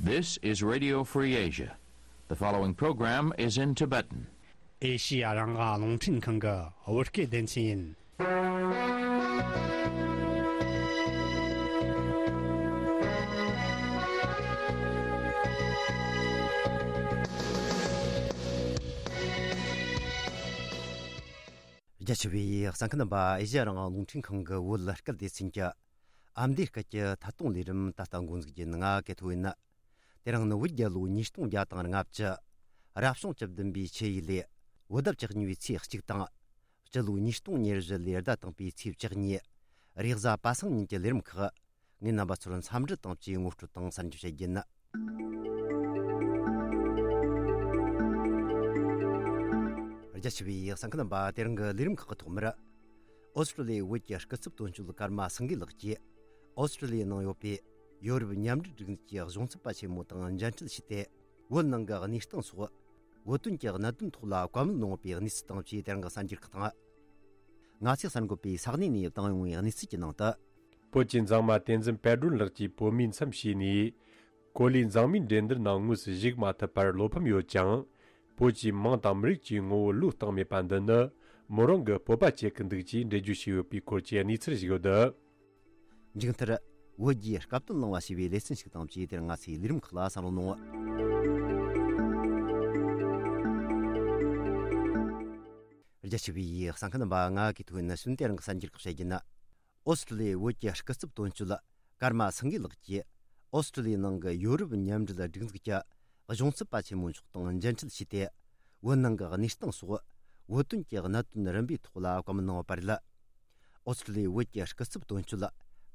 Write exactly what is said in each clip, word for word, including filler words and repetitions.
This is Radio Free Asia. The following program is in Tibetan. ཨེ་ཤི་ཡ་རང་དབང་རླུང་འཕྲིན་ཁང་གི་བོད་སྐད་སྡེ་ཚན་ཡིན། རྒྱ་ཆེ་བའི་གསན་མཁན་རྣམ་པ། ཨེ་ཤི་ཡ་རང་དབང་རླུང་འཕྲིན་ཁང་གི་བོད་སྐད་སྡེ་ཚན་གྱི་ཨ་མདོའི་སྐད་ཀྱི་ཐད་གཏོང་ལས་རིམ་ད་ལྟ་འགོ་འཛུགས་རྒྱུ་ཡིན། ང་གི་ཐོ་ཡིན། དེ་རིང་ནི་བོད་རྒྱལ་ལོ་ཉིས་སྟོང་བརྒྱ་དང་ལྔ་བཅུ། རབ་བྱུང་བཅུ་བདུན་པའི་ཆུ་ཡོས་ལོའི་བོད་ཟླ་བཅུ་གཉིས་པའི་ཚེས་གཅིག་དང་། སྤྱི་ལོ་ཉིས་སྟོང་ཉེར་བཞི་ལོའི་ཟླ་དང་པོའི་ཚེས་བཅུ་གཉིས། རེས་གཟའ་པ་སངས་ཉིན་གྱི་ལས་རིམ་ཁག་ངས་རྣམ་པ་ཚོར་འཚམས་འདྲི་དང་བཅས་ངོ་སྤྲོད་དང་གསར་འགྱུར་བཤད་རྒྱུ་ཡིན། རྒྱ་ཆེ་བའི་གསན་མཁན་རྣམ་པ། དེ་རིང་གི་ལས་རིམ་ཁག་གི་ཐོག་མར། ཨོ་སི་ཀྲི་ལི་ཡའི་བོད་ཀྱི་སྐུ་ཚབ་དོན་གཅོད་ཀརྨ་སེང་གེ་ལགས་ཀྱིས། ཨོ་སི་ཀྲི་ལི་ཡའི་ནང་ཡོད་པའི་ཡོ་རོབ་མཉམ་འབྲེལ་སྒྲིག་འཛུགས་ཀྱི་གཞུང་ཚབ་པ་ཆེན་མོ་དང་མཇལ་འཕྲད་བྱས་ཏེ། བོད་ནང་གི་གནས་སྟངས་སོགས། བོད་དོན་གྱི་གནད་དོན་ཐོག་ལ་བཀའ་མོལ་གནང་བའི་གནས་ཚུལ་དང་བཅས། དེ་རིང་གི་གསར་འགྱུར་ཁག་དང་། ང་ཚོས་གསར་འགོད་པས་ས་གནས་ནས་བཏང་ཡོང་བའི་གནས་ཚུལ་གྱི་ནང་དུ། བོད་ཀྱི་མཛངས་མ་བསྟན་འཛིན་དཔལ་སྒྲོན་ལགས་ཀྱིས་བོད་མིའི་མཚམས་བཞེས་ནས། གོ་ལའི་མཛངས་མའི་འགྲན་བསྡུར་ནང་དངོས་སུ་ཞུགས་མ་ཐུབ་པར་བློ་ཕམ་ཡོད་ཀྱང་། བོད་ཀྱི་མིང་དང་མི་རིགས་ཀྱི་ངོ་བོ་བློས་བཏང་མེད་པ་འདི་ནི། མོ་རང་གི་སྤོབས་པ་བསྐྱེད་ཀྱི་འདུག་ཅེས་འགྲེལ་བརྗོད་བྱས་ཡོད་པའི་སྐོར་གྱི་གནས་ཚུལ་ཞིག་ཡོད། མཇུག་མཐར། བོད་རྒྱའི་སྐབས་དོན་གླེང་བ་ཞེས་པའི་ལེ་ཚན་ཞིག་དང་བཅས། དེར་ང་ཚོའི་ལས་རིམ་ཁག་ལ་གསན་རོགས་གནང་། རྒྱ་ཆེ་བའི་གསན་མཁན་རྣམ་པ། ང་གི་ཐོ་ཡིན། ནི་གསུམ། དེ་རིང་གི་གསར་འགྱུར་ཁག་བཤད་རྒྱུ་ན། ཨོ་སི་ཀྲི་ལི་ཡའི་བོད་ཀྱི་སྐུ་ཚབ་དོན་གཅོད་ཀརྨ་སེང་གེ་ལགས་ཀྱིས། ཨོ་སི་ཀྲི་ལི་ཡའི་ནང་གི་ཡོ་རོབ་མཉམ་འབྲེལ་སྒྲིག་འཛུགས་ཀྱི་གཞུང་ཚབ་པ་ཆེན་མོ་མཆོག་དང་མཇལ་འཕྲད་བྱས་ཏེ། བོད་ནང་གི་གནས་སྟངས་སོགས། བོད་དོན་གྱི་གནད་དོན་རིམ་པའི་ཐོག་ལ་བཀའ་མོལ་གནང་བ་རེད། ཨོ་སི་ཀྲི་ལི་ཡའི་བོད་ཀྱི་སྐུ་ཚབ་དོན་གཅོད་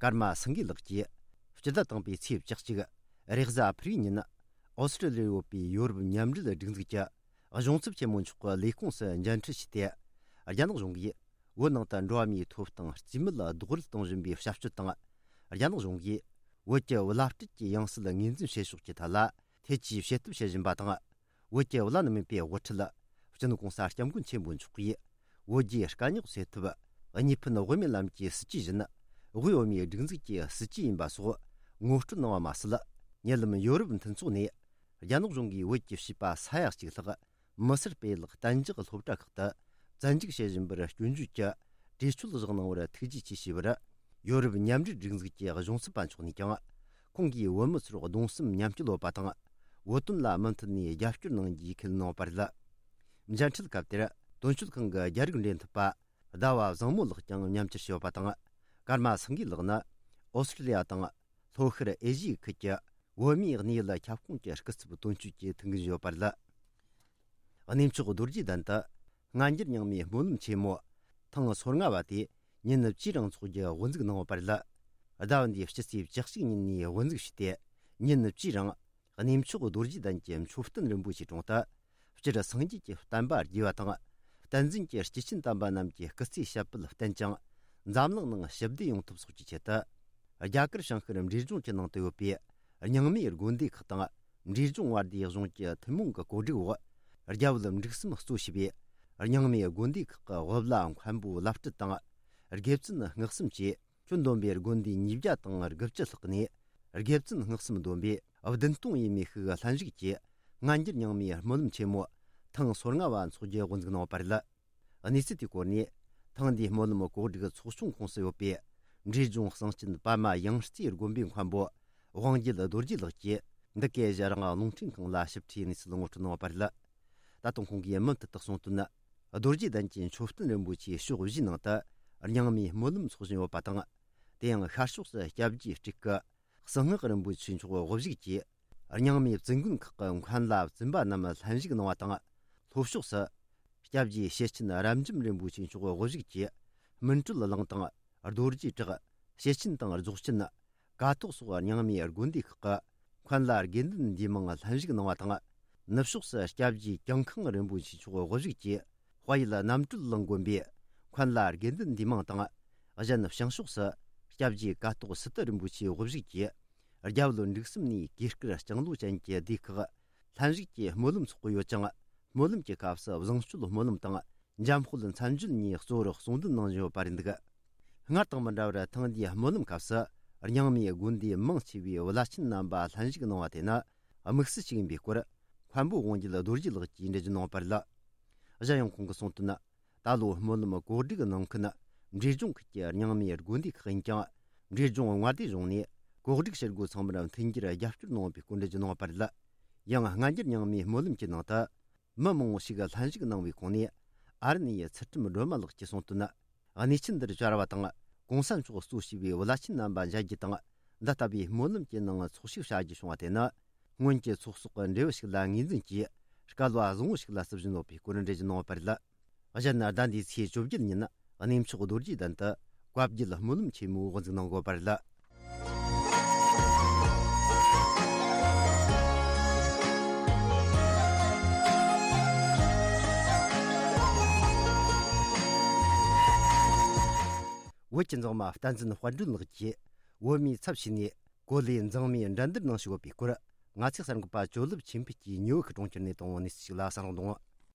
ཀརྨ་སེང་གེ་ལགས་ཀྱིས། སྤྱི་ཟླ་དང་པོའི་ཚེས་བཅུ་གཅིག་རེས་གཟའ་ཕུར་བུའི་ཉིན། ཨོ་སི་ཀྲི་ལི་ཡར་ཡོད་པའི་ཡོ་རོབ་མཉམ་འབྲེལ་སྒྲིག་འཛུགས་ཀྱི་གཞུང་ཚབ་ཆེན་མོ་མཆོག་གི་ལས་ཁུངས་སུ་མཇལ་འཕྲད་བྱས་ཏེ། རྒྱ་ནག་གཞུང་གིས་བོད་ནང་དུ་འགྲོ་བ་མིའི་ཐོབ་ཐང་རྩིས་མེད་རྡོག་རོལ་གཏོང་བཞིན་པའི་བྱ་སྤྱོད་དང་། རྒྱ་ནག་གཞུང་གིས་བོད་ཀྱི་བླ་སྤྲུལ་གྱི་ཡང་སྲིད་ངོས་འཛིན་བྱེད་ཕྱོགས་ཀྱི་ཐད་ལ་ཐེ་ཇུས་བྱེད་ཐབས་བྱེད་བཞིན་པ་དང་། བོད་ཀྱི་བླ་ན་མེད་པའི་དབུ་ཁྲིད། སྤྱི་ནོར་གོང་ས་སྐྱབས་མགོན་ཆེན་པོ་མཆོག་གིས་བོད་རྒྱའི་དཀའ་རྙོག་སེལ་ཐབས་གཉིས་ཕན་དབུ་མའི་ལམ་གྱི་སྲིད་ཇུས་བཞིན། དབུས་བོད་མིའི་སྒྲིག་འཛུགས་ཀྱི་སྲིད་ཇུས་ཡིན་པ་སོགས་ངོ་སྤྲོད་གནང་བ་མ་ཟད། ཉེ་ལམ་ཡོ་རོབ་མཐུན་ཚོགས་ནས་རྒྱ་ནག་གཞུང་གིས་བོད་ཀྱི་བྱིས་པ་ས་ཡ་གཅིག་ལྷག་མི་སེར་སྤེལ་གཏན་འཇགས་སློབ་གྲྭ་ཁག་ཏུ་བཙན་འཇུག་བྱེད་བཞིན་པར་སྐྱོན་བརྗོད་ཀྱི་གྲོས་ཆོད་བཞག་གནང་བར་ཐུགས་རྗེ་ཆེ་ཞུས་པར། ཡོ་རོབ་མཉམ་འབྲེལ་སྒྲིག་འཛུགས་ཀྱི་གཞུང་ཚབ་པ་མཆོག་ནས་ཀྱང་། ཁོང་གིས་བོད་མི་ཚོར་གདུང་སེམས་མཉམ་སྐྱེད་ཡོད་པ་དང་། བོད་དོན་ལ་མུ་མཐུད་ནས་རྒྱབ་སྐྱོར་གནང་རྒྱུའི་ཁས་ལེན་གནང་བ་རེད། མཇལ་འཕྲད་སྐབས་དེར་དོན་གཅོད་ཁང་གི་རྒྱ་རིགས་འབྲེལ་མཐུད་པ་ཟླ་བ་བཟང་མོ་ལགས་ཀྱང་མཉམ་ཞུགས་བྱས་ཡོད་པ་དང་། ཀརྨ་སེང་གེ་ལགས་ནི་ཨོ་སི་ཀྲི་ལི་ཡ་དང་ལྷོ་ཤར་ཨེ་ཤི་ཡའི་ཁུལ་གྱི་བོད་མིའི་གནས་ཡུལ་ཁྱབ་ཁོངས་ཀྱི་སྐུ་ཚབ་དོན་གཅོད་ཀྱི་ཐུགས་འགན་བཞེས་ཡོད་པ་རེད། གནས་མཆོག་རྡོ་རྗེ་གདན་དུ་སྔ་འགྱུར་རྙིང་མའི་སྨོན་ལམ་ཆེན་མོ་ཐེངས་སོ་ལྔ་བ་དེ་ཉིན་བཅུའི་རིང་འཚོགས་རྒྱུ་དབུ་འཛུགས་གནང་བ་རེད། ཟླ་བ་འདིའི་སྤྱི་ཚེས་བཅུ་གཅིག་ཉིན་ནས་དབུ་འཛུགས་བྱས་ཏེ། ཉིན་བཅུའི་རིང་གནས་མཆོག་རྡོ་རྗེ་གདན་གྱི་མཆོད་རྟེན་རིན་པོ་ཆེའི་དྲུང་དུ། སྤྱིར་སངས་རྒྱས་ཀྱི་བསྟན་པ་རྒྱས་པ་དང་། བསྟན་འཛིན་གྱི་སྐྱེས་ཆེན་དམ་པ་རྣམས་ཀྱི་སྐུ་ཚེའི་ཞབས་པད་བརྟན་ཅིང་། འཛམ་གླིང་ནང་ཞི་བདེ་ཡོང་ཐབས་སོགས་ཀྱི་ཆེད་དུ། རྒྱ་གར་བྱང་ཤར་འབྲས་ལྗོངས་ཀྱི་ནང་དུ་ཡོད་པའི་རྙིང་མའི་དགོན་སྡེ་ཁག་དང་། འབྲས་ལྗོངས་བར་དོའི་གཞུང་གི་ཐུན་མོང་གི་གོ་སྒྲིག་འོག་རྒྱ་བོད་འབྲུག་གསུམ་གཙོ་བྱས་པའི་རྙིང་མའི་དགོན་སྡེ་ཁག་གི་དབུ་བླ་མཁན་པོ་བླ་སྤྲུལ་དང་། དགེ་བཙུན་སྔགས་གསུམ་བཅས། ཁྱོན་བསྡོམས་པའི་དགོན་སྡེ་ཉིས་བརྒྱ་དང་དགུ་བཅུ་ལྷག་ནས། དགེ་བཙུན་སྔགས་གསུམ་བསྡོམས་པས་བདུན་སྟོང་ཡས་མས་ཤིག་ལྷན་ཞུགས་ཀྱིས་སྔ་འགྱུར་རྙིང་མའི་སྨོན་ལམ་ཆེན་མོ་ཐེངས་སོ་ལྔ་བ་འཚོགས་རྒྱུ་དབུ་འཛུགས་གནང་བ་རེད། གནས་ཚུལ་དེའི་སྐོར་ནས། ཐེངས་འདིའི་སྨོན་ལམ་གོ་སྒྲིག་ཚོགས་ཆུང་ཁོངས་སུ་ཡོད་པའི་འབྲས་ལྗོངས་གསང་ཆེན་པདྨ་ཡང་རྩེའི་དགོན་པའི་མཁན་པོ་དབང་རྒྱལ་རྡོ་རྗེ་ལགས་ཀྱིས། འདི་གའི་གཞན་རང་རླུང་འཕྲིན་ཁང་ལ་ཞིབ་ཕྲའི་གནས་ཚུལ་ངོ་སྤྲོད་གནང་བ་རེད། ད་དུང་ཁོང་གིས་མུ་མཐུད་དུ་གསུངས་དོན། རྡོ་རྗེ་གདན་གྱི་མཆོད་རྟེན་རིན་པོ་ཆེའི་ཕྱོགས་བཞིའི་ནང་དུ་རྙིང་མའི་སྨོན་ལམ་འཚོགས་བཞིན་ཡོད་པ་དང་། དེ་ཡང་ཤར་ཕྱོགས་སུ་སྐྱབས་རྗེ་སྤྲུལ་སྐུ་གསང་སྔགས་རིན་པོ་ཆེ་མཆོག་དབུ་བཞུགས་ཀྱིས། རྙིང་མའི་བཙུན་དགོན་ཁག་གི་མཁན་བླ་བཙུན་པ་རྣམས་ལྷན་ཞུགས་གནང་བ་དང་། ལྷོ་ཕྱོགས་སུ་སྐྱབས་རྗེ་ཤེར་ཕྱིན་རབ་འབྱམས་རིན་པོ་ཆེ་མཆོག་དབུ་བཞུགས་ཀྱིས། སྨིན་གྲོལ་གླིང་དང་། རྡོ་རྗེ་བྲག། ཤེར་ཕྱིན་དང་རྫོགས་ཆེན། ཀཿཐོག་སོགས་རྙིང་མའི་དགོན་སྡེ་ཁག་གི་མཁན་བླ་དགེ་འདུན་འདུས་མང་ལྷན་ཞུགས་གནང་བ་དང་། ནུབ་ཕྱོགས་སུ་སྐྱབས་རྗེ་ཀྱང་ཁང་རིན་པོ་ཆེ་མཆོག་དབུ་བཞུགས་ཀྱིས། དཔལ་ཡུལ་རྣམ་གྲོལ་གླིང་དགོན་པའི་མཁན་བླ་དགེ་འདུན་འདུས་མང་དང་། གཞན་བྱང་ཕྱོགས་སུ་སྐྱབས་རྗེ་ཀཿཐོག་སི་ཏུ་རིན་པོ་ཆེ་དབུ་བཞུགས་ཀྱིས། རྒྱ་བོད་འབྲུག་གསུམ་ནས་གོས་དཀར་ལྕང་ལོ་ཅན་གྱི་སྡེ་ཁག་ལྷན་ཞུགས་ཀྱིས་སྨོན་ལམ་འཚོགས་ཀྱི་ཡོད་ཅིང་། སྨོན་ལམ་གྱི་སྐབས་སུ་བཟང་སྤྱོད་སྨོན་ལམ་དང་། འཇམ་དཔལ་མཚན་བརྗོད་གཉིས་གཙོ་བོར་གསུང་འདོན་གནང་བཞིན་ཡོད་པ་རེད་འདུག་སྔར་དང་མི་འདྲ་བར་ཐེངས་འདིའི་སྨོན་ལམ་སྐབས་སུ་རྙིང་མའི་དགོན་སྡེ་མང་ཆེ་བའི་བླ་ཆེན་རྣམ་པ་ལྷན་ཞུགས་གནང་བ་དེ་ནི། དམིགས་བསལ་ཞིག་ཡིན་པའི་སྐོར། མཁན་པོ་དབང་རྒྱལ་རྡོ་རྗེ་ལགས་ཀྱིས་འགྲེལ་བརྗོད་གནང་བ་རེད། གཞན་ཡང་ཁོང་གིས་གསུངས་དོན། ད་ལོ་སྨོན་ལམ་གོ་སྒྲིག་གནང་མཁན་འབྲས་ལྗོངས་ཁུལ་གྱི་རྙིང་མའི་དགོན་སྡེ་ཁག་ཡིན་ཀྱང་། འབྲས་ལྗོངས་མངའ་སྡེ་གཞུང་ནས་གོ་སྒྲིག་བྱེད་སྒོ་ཚང་མར་མཐུན་འགྱུར་རྒྱབ་སྐྱོར་གནང་བའི་སྐོར་འགྲེལ་བརྗོད་གནང་བ་རེད། ཡང་སྔ་འགྱུར་རྙིང་མའི་སྨོན་ལམ་གྱི་ནང་དུ། མི་མང་བོ་ཞིག་ལྷན་ཞུགས་གནང་བའི་ཁོངས་ནས། ཨ་རི་ནས་ཚུལ་ཁྲིམས་སྒྲོལ་མ་ལགས་ཀྱིས་གསུངས་དོན། གནས་ཆེན་འདིར་བཅར་བ་དང་། གོང་ས་མཆོག་གཙོས་བྱས་པའི་བླ་ཆེན་རྣམ་པ་མཇལ་རྒྱུ་དང་། འདི་ལྟ་བུའི་སྨོན་ལམ་གྱི་ནང་ཚོགས་ཞུགས་བྱ་རྒྱུ་བྱུང་བ་དེ་ནི། སྔོན་གྱི་ཚོགས་གསོག་གི་འབྲས་བུ་ཞིག་ལ་ངོས་འཛིན་གྱིས། སྐལ་བ་བཟང་བོ་ཞིག་ལ་བརྩི་བཞིན་ཡོད་པའི་སྐོར་འགྲེལ་བརྗོད་གནང་བ་རེད། གཞན་ན་ཟླ་འདིའི་ཚེས་བཅོ་བརྒྱད་ཉིན་གནས་མཆོག་རྡོ་རྗེ་གདན་དུ་བཀའ་བརྒྱུད་སྨོན་ལམ་ཆེན་མོའི་དབུ་འཛུགས་གནང་དགོས་པ་རེད། བོད་ཀྱི་མཛངས་མ་བསྟན་འཛིན་དཔལ་སྒྲོན་ལགས་ཀྱིས་བོད་མིའི་ཚབ་བྱས་ནས་གོ་ལའི་མཛངས་མའི་འགྲན་བསྡུར་ནང་ཞུགས་ཡོད་པའི་སྐོར། ང་ཚོའི་གསར་འགོད་པ་ཇོ་ལེབ་ཆོས་འཕེལ་གྱིས་ཉིའུ་ཡོག་གི་གྲོང་ཁྱེར་ནས་བཏང་བའི་གནས་ཚུལ་ཞིག་ལ་གསན་རོགས་གནང་།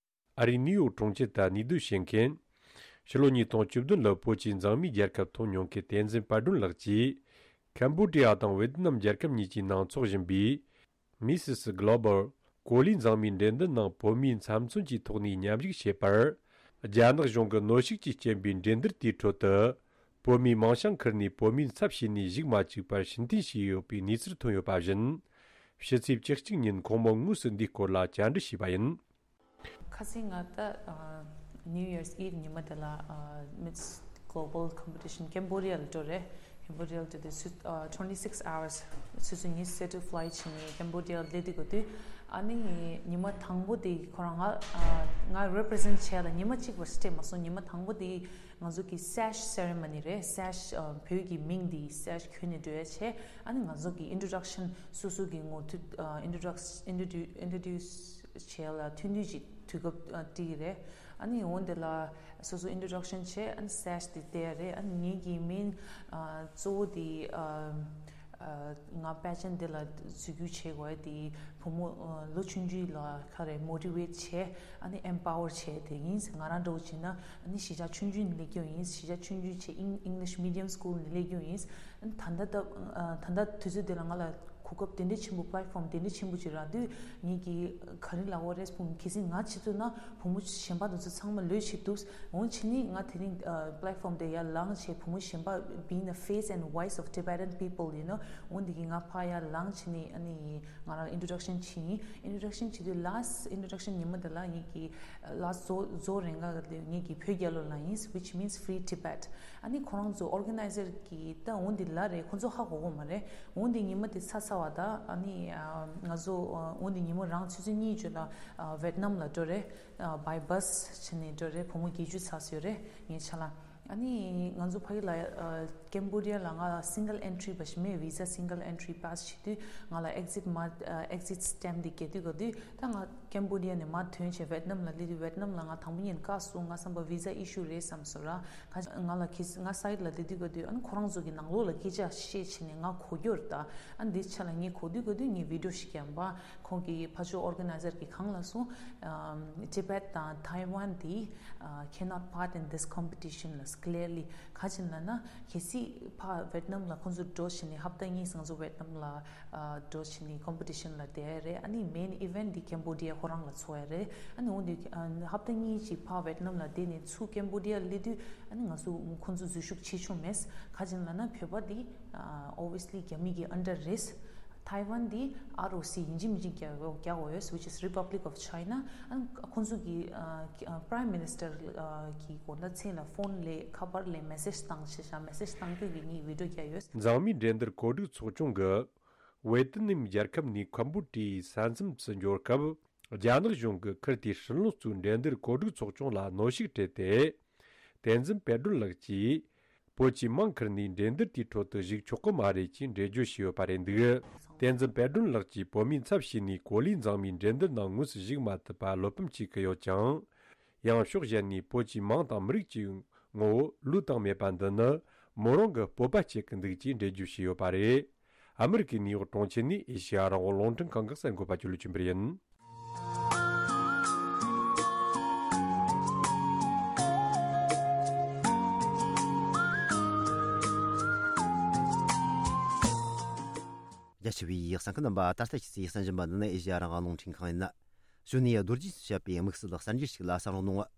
ཨ་རིའི་ནིའུ་ཡོག་གྲོང་ཁྱེར་དུ་གནས་སྡོད་བྱེད་མཁན། ཕྱི་ལོ་ཉིས་སྟོང་བཅུ་བདུན་ལོར་བོད་ཀྱི་མཛངས་མའི་རྒྱལ་ཁབ་ཐོབ་མྱོང་མཁན་བསྟན་འཛིན་དཔལ་སྒྲོན་ལགས་ཀྱིས། ཁམ་བྷོ་ཌི་ཡ་དང་ཝེ་ཏི་ནམ་རྒྱལ་ཁབ་གཉིས་ཀྱི་ནང་འཚོགས་བཞིན་པའི། མི་སི་སི་གྷི་ལོ་བལ་གོ་ལའི་མཛངས་མའི་འགྲན་བསྡུར་ནང་བོད་མིའི་འཚབ་མཚོན་གྱི་ཐོག་ནས་མཉམ་ཞུགས་བྱས་པར། རྒྱ་ནག་གཞུང་གིས་གནོན་ཤུགས་ཀྱིས་རྐྱེན་པས་འགྲན་བསྡུར་དེའི་ཁྲོད་དུ། བོད་མིའི་མིང་བྱང་ཁུར་ནས་བོད་མིའི་ཚབ་བྱས་ནས་ཞུགས་མ་བཅུག་པར་ཕྱིར་འཐེན་བྱས་ཡོད་པའི་གནས་ཚུལ་ཐོན་ཡོད་པ་བཞིན། ཕྱི་ཚེས་བཅུ་གཅིག་ཉིན་ཁོང་མོ་དངོས་སུ་འདིའི་སྐོར་ལ་བཅར་འདྲི་བྱས་པ་ཡིན། ཁ་སང་ང་ད་ཨ་New Year's Eve ཉི་མ་དེ་ལ་ཨ་Miss Global Competition Cambodia ལ་འགྲོ་རེད། Cambodia ལ་འགྲོ་དུས་ཨ་twenty six hours ཆུ་ཚོད་ཉི་ཤུ་རྩ་དྲུག་flight བྱས་ནས་Cambodia ལ་སླེབས་དུས་གོ་དུས། ཨ་ནི་ཉི་མ་དང་པོ་དེ་ཁོ་རང་ང་ཨ་ང་represent བྱས་ལ་ཉི་མ་གཅིག་བར་སྤྲད་མ་སོང་། ཉི་མ་དང་པོ་དེ་ང་ཚོ་གི་sash ceremony རེད། sash ཨ་བོད་ཀྱི་མིང་དེ་sash གྱོན་ནས་འགྲོ་ཡ་བྱས། ཨ་ནི་ང་ཚོ་གི་introduction སོ་སོ་གི་ངོ་ཐུག་ཨ་introduction introduce introduce བྱས་ལ་ཐུང་ཐུང་ཅིག་དུས་སྐབས་ཨ་སྤྲད་ཀྱི་རེད། ཨ་ནི་འོན་ཏེ་ལ་སོ་སོ་introduction བྱས། ཨ་ནི་sash དེ་བལྟས་རེད། ཨ་ནི་ངེད་ཀྱི་མིང་ཨ་གཙོ་བོ་དེ་ཨ་ཨ་ང་pageant དེ་ལ་འཛུལ་རྒྱུ་བྱེད་དགོས་དེ་བུ་མོ་ཨ་ལོ་ཆུང་ཆུང་ལ་ག་རེ་motivate བྱས། ཨ་ནི་empower བྱས་དེ་ཡིན། ང་རང་འདྲ་བོ་བྱས་ན་ཨ་ནི་གཞིས་ཆགས་ཆུང་ཆུང་ནས་སླེབས་ཀྱི་ཡིན། གཞིས་ཆགས་ཆུང་ཆུང་བྱས་Eng- English medium school ནས་སླེབས་ཀྱི་ཡིན། ཨ་ནི་ད་ལྟ་ད་ཨ་ད་ལྟ་དུས་ཚོད་དེ་ལ་ང་ལ་གོ་སྐབས་དེ་འདྲ་ཆེན་པོ་platform དེ་འདྲ་ཆེན་པོ་ཅིག་རག་དུས་ངེད་ཀྱིས་ག་རེ་ལབ་དགོས་རེད་སྤུན། གལ་སྲིད་ང་ཆེད་དུ་ན་བུ་མོ་གཞན་པ་དེ་ཚོ་ཚང་མ་ལོས་བྱེད་ཐུབ། འོན་ཕྱིན་ནི་ང་དེ་རིང་ཨ་platform དེ་ཡར་ལངས་བྱས་བུ་མོ་གཞན་པ་being the face and voice of Tibetan people you know འོན་དེ་གི་ང་ཕར་ཡར་ལངས་བྱས་ནི་ཨ་ནི་ང་རང་introduction བྱས་ཡིན། introduction བྱེད་དུས་last introduction ཉི་མ་དེ་ལ་ངེད་ཀྱི་last ཟོ་ཟོ་རེ་འགའ་དེ་ངེད་ཀྱི་བོད་རྒྱལ་ལོ་ལ་ཡིན། Which means Free Tibet ཨ་ནི་ཁོ་རང་ཚོ་organizer གི་ད་འོན་དེ་ལ་རེད། ཁོ་ཚོ་ཧ་གོ་གོ་མ་རེད། འོན་ཏེ་ཉི་མ་དེ་ཚར་ཚར་བ་དང་ཨ་ནི་ཨ་ང་ཚོ་ཨ་འོན་ཏེ་ཉི་མ་རང་ཆུ་ཚོད་གཉིས་བརྗོད་ལ་ཨ་ཝེད་ནམ་ལ་འགྲོ་རེད། ཨ་by bus བྱས་ནས་འགྲོ་རེད། བུ་མོ་བརྒྱད་ཅུ་ཚར་སོང་རེད་ངའི་ཆ་ལ། ཨ་ནི་ང་ཚོ་ཕ་གི་ལ་ཨ་ཀེམ་བོ་ཌི་ཡ་ལ་ང་single entry བ་ཞིག་མེད། visa single entry pass བྱེད་དུས་ང་ལ་exit མ་ཨ་exit stamp དེ་རྒྱག་དུས་ག་དུས་ད་ང་ཀེམ་བོ་ཌི་ཡ་ནས་མར་ཐོན་བྱས་ཝེད་ནམ་ལ་སླེབས་དུས་ཝེད་ནམ་ལ་ང་དང་པོ་ཉིད་བཀག་སོང་། ང་བསམ་པ་visa issue རེད་བསམ་སོང་ར། ང་ང་ལ་ཁྱེད་ང་side ལ་བསྡད་དུས་ག་དུས་ཨ་ནི་ཁོ་རང་ཚོ་གི་ནང་ལོགས་ལ་སྐད་ཆ་བཤད་བྱས་ནས་ང་གོ་རྒྱུ་རེད་ད། ཨ་ནི་འདི་ཆ་ལ་ངས་གོ་དུས་ག་དུས་ངས་video ཞིག་བརྒྱབ་པ། ཁོང་གི་ཕར་ཕྱོགས་organizer གི་གང་ལ་སོང་། ཨམ་Tibet དང་Taiwan འདི་ཨ་cannot part in this competition ལ་clearly ག་ཅིན་ལ་ན་གལ་སྲིད་ཕར་ཝེད་ནམ་ལ་ཁོང་ཚོ་འགྲོ་བྱས་ནས་ཧབ་ཏ་གཉིས་ང་ཚོ་ཝེད་ནམ་ལ་ཨ་འགྲོ་བྱས་ནས་competition ལ་བསྡད་རེད། ཨ་ནི་main event འདི་Cambodia ཁོ་རང་ལ་འཚོགས་ཡ་རེད། ཨ་ནི་འོན་ཏེ་ཨ་ཧབ་ཏ་གཉིས་ཅིག་ཕར་ཝེད་ནམ་ལ་བསྡད་ནས་ཚུར་Cambodia སླེབས་དུས་ཨ་ནི་ང་ཚོ་ཁོང་ཚོ་འཛུལ་ཞུགས་བྱེད་ཆོག་མེད། ག་ཅིན་ལབ་ན་བོད་པ་འདི་ཨ་obviously རྒྱ་མི་གི་under རེད། Taiwan འདི་R O C ཡིན་གཅིག་མིན་གཅིག་རྒྱག་རྒྱག་དགོས་ཡོད། Which is Republic of China ཨ་ཁོང་ཚོ་གི་ཨ་prime minister གི་དགོངས་དག་མཚན་ལ་phone ལས་ཁ་པར་ལས་message བཏང་བྱས་བྱ་message བཏང་རྒྱུ་གི་ངས་video བརྒྱབ་ཡོད། མཛངས་མའི་འགྲན་བསྡུར་གོ་སྒྲིག་ཚོགས་ཆུང་གིས། ཝེ་ཏི་ནམ་རྒྱལ་ཁབ་ནས་ཁམ་བུ་ཀྲི་ཡའི་ས་མཚམས་སུ་འབྱོར་སྐབས། རྒྱ་ནག་གཞུང་གིས་ཁུར་དེའི་ཧྲིན་ལོ་གཙོས་འགྲན་བསྡུར་གོ་སྒྲིག་ཚོགས་ཆུང་ལ་གནོན་ཤུགས་སྤྲད་དེ། བསྟན་འཛིན་དཔལ་སྒྲོན་ལགས་ཀྱིས། བོད་ཀྱི་མིང་ཁུར་ནས་འགྲན་བསྡུར་དེའི་ཁྲོད་དུ་ཞུགས་ཆོག་གི་མ་རེད་ཅེས་འགྲེལ་བརྗོད་བྱས་ཡོད་པ་རེད་འདུག་བསྟན་འཛིན་དཔལ་སྒྲོན་ལགས་ཀྱིས་བོད་མིའི་ཚབ་བྱས་ནས་གོ་ལའི་མཛངས་མའི་འགྲན་བསྡུར་ནང་དངོས་སུ་ཞུགས་མ་ཐུབ་པར་བློ་ཕམ་བྱེད་ཀྱི་ཡོད་ཀྱང་། ཡང་ཕྱོགས་གཞན་ནས་བོད་ཀྱི་མིང་དང་མི་རིགས་ཀྱི་ངོ་བོ་བློས་བཏང་མེད་པ་འདི་ནི་མོ་རང་གི་སྤོབས་པ་བསྐྱེད་ཀྱི་འདུག་ཅེས་འགྲེལ་བརྗོད་བྱས་ཡོད་པ་རེད། ཨ་མི་རི་ཀའི་ནིའུ་ཡོག་གྲོང་ཁྱེར་ནས་ཨེ་ཤེ་ཡ་རང་དབང་རླུང་འཕྲིན་ཁང་གི་གསར་འགོད་པ་ཇོ་ལེ་ཆོས་འཕེལ་ཡིན། རྒྱ་ཆེ་བའི་ཡིག་གསན་མཁན་རྣམ་པ། ད་ལྟ་ཁྱེད་ཚོས་གསན་བཞིན་པ་འདི་ནི་ཨེ་ཤེ་ཡ་རང་དབང་རླུང་འཕྲིན་ཁང་ཡིན། གཞུག་ནས་རྡོ་རྗེས་བཤད་པའི་དམིགས་བསལ་གསར་འགྱུར་ཞིག་ལ་གསན་རོགས་གནང་།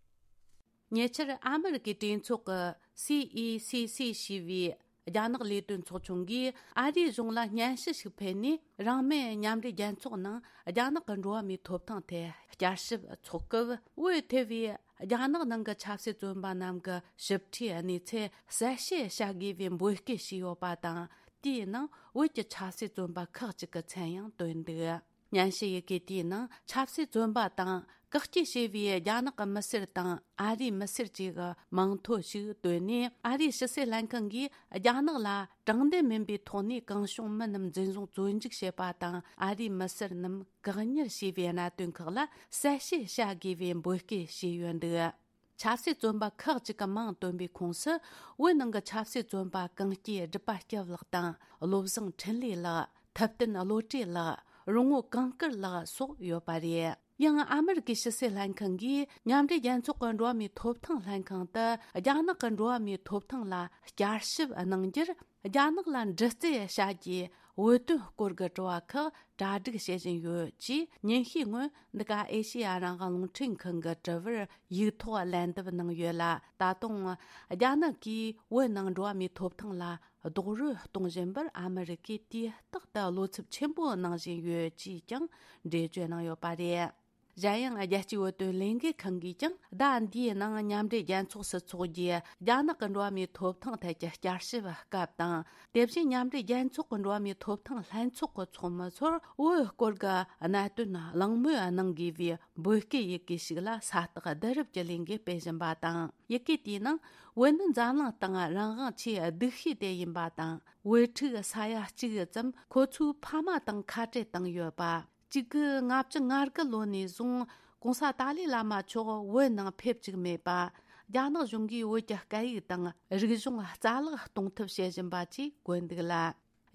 ཉེ་ཆར་ཨ་མི་རི་ཀའི་གྲོས་ཚོགས་ཀྱི་སི་ཨི་སི་སི་ཞེས་པའི་རྒྱ་ནག་ལས་དོན་ཚོགས་ཆུང་གིས་ཨ་རིའི་གཞུང་ལ་སྙན་ཞུ་ཞིག་ཕུལ་ནས། རང་མོས་མཉམ་འབྲེལ་རྒྱལ་ཚོགས་ནང་རྒྱ་ནག་གི་འགྲོ་བ་མིའི་ཐོབ་ཐང་ཐད་བསྐྱར་ཞིབ་འཚོགས་སྐབས། བོད་ཐེ་བའི་རྒྱ་ནག་ནང་གི་ཆབ་སྲིད་བཙོན་པ་རྣམས་ཀྱི་ཞིབ་ཕྲའི་གནས་ཚུལ་གསལ་བཤད་བྱ་དགོས་པའི་འབོད་སྐུལ་བྱས་ཡོད་པ་དང་། དེའི་ནང་བོད་ཀྱི་ཆབ་སྲིད་བཙོན་པ་ཁག་ཅིག་གི་མཚན་ཡང་བཏོན་འདུག། སྙན་ཞུ་ཡི་གེ་དེའི་ནང་ཆབ་སྲིད་བཙོན་པ་དང་བཀག་སྐྱིལ་བྱས་པའི་རྒྱ་ནག་གི་མི་སེར་དང་ཨ་རིའི་མི་སེར་བཅས་ཀྱི་མིང་ཐོ་ཞིག་བཏོན་ནས། ཨ་རིའི་ཕྱི་སྲིད་ལྷན་ཁང་གིས་རྒྱ་ནག་ལ་དྲང་བདེན་མིན་པའི་ཐོག་ནས་གང་བྱུང་མི་རྣམས་འཛིན་བཟུང་བཙོན་འཇུག་བྱེད་པ་དང་། ཨ་རིའི་མི་སེར་རྣམས་བཀག་ཉར་བྱས་པའི་གནད་དོན་ཁག་ལ་གསལ་བཤད་བྱ་དགོས་པའི་འབོད་སྐུལ་བྱས་ཡོད་འདུག། ཆབ་སྲིད་བཙོན་པ་ཁག་ཅིག་གི་མིང་བཏོན་པའི་ཁོངས་སུ། བོད་ནང་གི་ཆབ་སྲིད་བཙོན་པ་གངས་སྐྱེས་སྒྲུབ་པ་སྐྱབས་ལགས་དང་། བློ་བཟང་འཕྲིན་ལས་ལགས། ཐུབ་བསྟན་བློ་གྲོས་ལགས། རོང་བོ་གངས་དཀར་ལགས་སོགས་ཡོད་པ་རེད། ཡང་ཨ་མི་རི་ཀའི་ཕྱི་སྲིད་ལྷན་ཁང་གིས་མཉམ་འབྲེལ་རྒྱལ་ཚོགས་ཀྱི་འགྲོ་བ་མིའི་ཐོབ་ཐང་ལྷན་ཁང་དུ། རྒྱ་ནག་གི་འགྲོ་བ་མིའི་ཐོབ་ཐང་ལ་བསྐྱར་ཞིབ་གནང་རྒྱུར། རྒྱ་ནག་ལ་འདྲི་རྩད་བྱ་རྒྱུའི་འོས་བསྡུ་སྐོར་གྱི་དྲི་བ་ཁག་གྲ་སྒྲིག་བྱེད་བཞིན་ཡོད་ཅེས། ཉིན་ཤས་སྔོན་འདི་ག་ཨེ་ཤེ་ཡ་རང་དབང་རླུང་འཕྲིན་ཁང་གི་དྲི་བར་ཡིག་ཐོག་ལན་འདེབས་གནང་ཡོད་ལ། ད་དུང་རྒྱ་ནག་གིས་བོད་ནང་འགྲོ་བ་མིའི་ཐོབ་ཐང་ལ་རྡོག་རོལ་གཏོང་བཞིན་པར་ཨ་མི་རི་ཀས་དུས་རྟག་ཏུ་བློ་འཚབ་ཆེན་པོ་གནང་བཞིན་ཡོད་ཅེས་ཀྱང་འགྲེལ་བརྗོད་གནང་ཡོད་པ་རེད། གཞན་ཡང་། རྒྱལ་སྤྱིའི་བོད་དོན་ལས་འགུལ་ཁང་གིས་ཀྱང་ཟླ་འདིའི་ནང་མཉམ་འབྲེལ་རྒྱལ་ཚོགས་སུ་འཚོགས་རྒྱུའི་རྒྱ་ནག་གི་འགྲོ་བ་མིའི་ཐོབ་ཐང་ཐད་ཀྱི་བསྐྱར་ཞིབ་སྐབས་དང་། དེ་བཞིན་མཉམ་འབྲེལ་རྒྱལ་ཚོགས་ཀྱི་འགྲོ་བ་མིའི་ཐོབ་ཐང་ལྷན་ཚོགས་ཀྱི་ཚོགས་མི་ཚོར་བོད་སྐོར་གྱི་གནད་དོན་གླེང་མོལ་གནང་དགོས་པའི་འབོད་སྐུལ་ཡི་གེ་ཞིག་ལ་ས་རྟགས་བསྡུ་རུབ་ཀྱི་ལས་འགུལ་སྤེལ་བཞིན་པ་དང་། ཡི་གེ་དེའི་ནང་བོད་ནི་འཛམ་གླིང་སྟེང་རང་དབང་ཆེས་སྡུག་ཤོས་དེ་ཡིན་པ་དང་། བོད་ཕྲུག་ས་ཡ་གཅིག་ཙམ་ཁོ་ཚོའི་ཕ་མ་དང་ཁ་བྲལ་བཏང་ཡོད་པ། གཅིག་དགུ་ལྔ་བཅུ་ང་དགུ་ལོ་ནས་བཟུང་གོང་ས་ཏཱ་ལའི་བླ་མ་མཆོག་བོད་ནང་ཕེབས་བཅུག་མེད་པ། རྒྱ་ནག་གཞུང་གིས་བོད་ཀྱི་སྐད་ཡིག་དང་རིག་གཞུང་རྩ་བརླག་གཏོང་ཐབས་བྱེད་བཞིན་པ་བཅས་བཀོད་འདུག་ལ།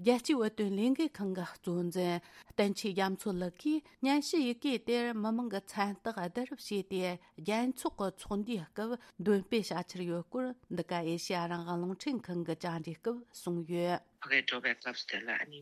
རྒྱལ་སྤྱིའི་བོད་དོན་ལས་འགུལ་ཁང་གི་གཙོ་འཛིན་བསྟན་ཆོས་རྒྱ་མཚོ་ལགས་ཀྱིས་སྙན་ཞུ་ཡི་གེ་དེར་མི་མང་གི་མཚན་རྟགས་བསྡུ་རུབ་བྱས་ཏེ། རྒྱལ་ཚོགས་ཀྱི་ཚོགས་འདུའི་སྐབས་འདོན་སྤེལ་བྱ་འཆར་ཡོད་སྐོར་འདི་ག་ཨེ་ཤེ་ཡ་རང་དབང་རླུང་འཕྲིན་ཁང་གི་བཅར་འདྲིའི་སྐབས་གསུངས་ཡོད། ཕ་གིར་འགྲོ་བའི་སྐབས་དེ་ལ་ཨ་ནི་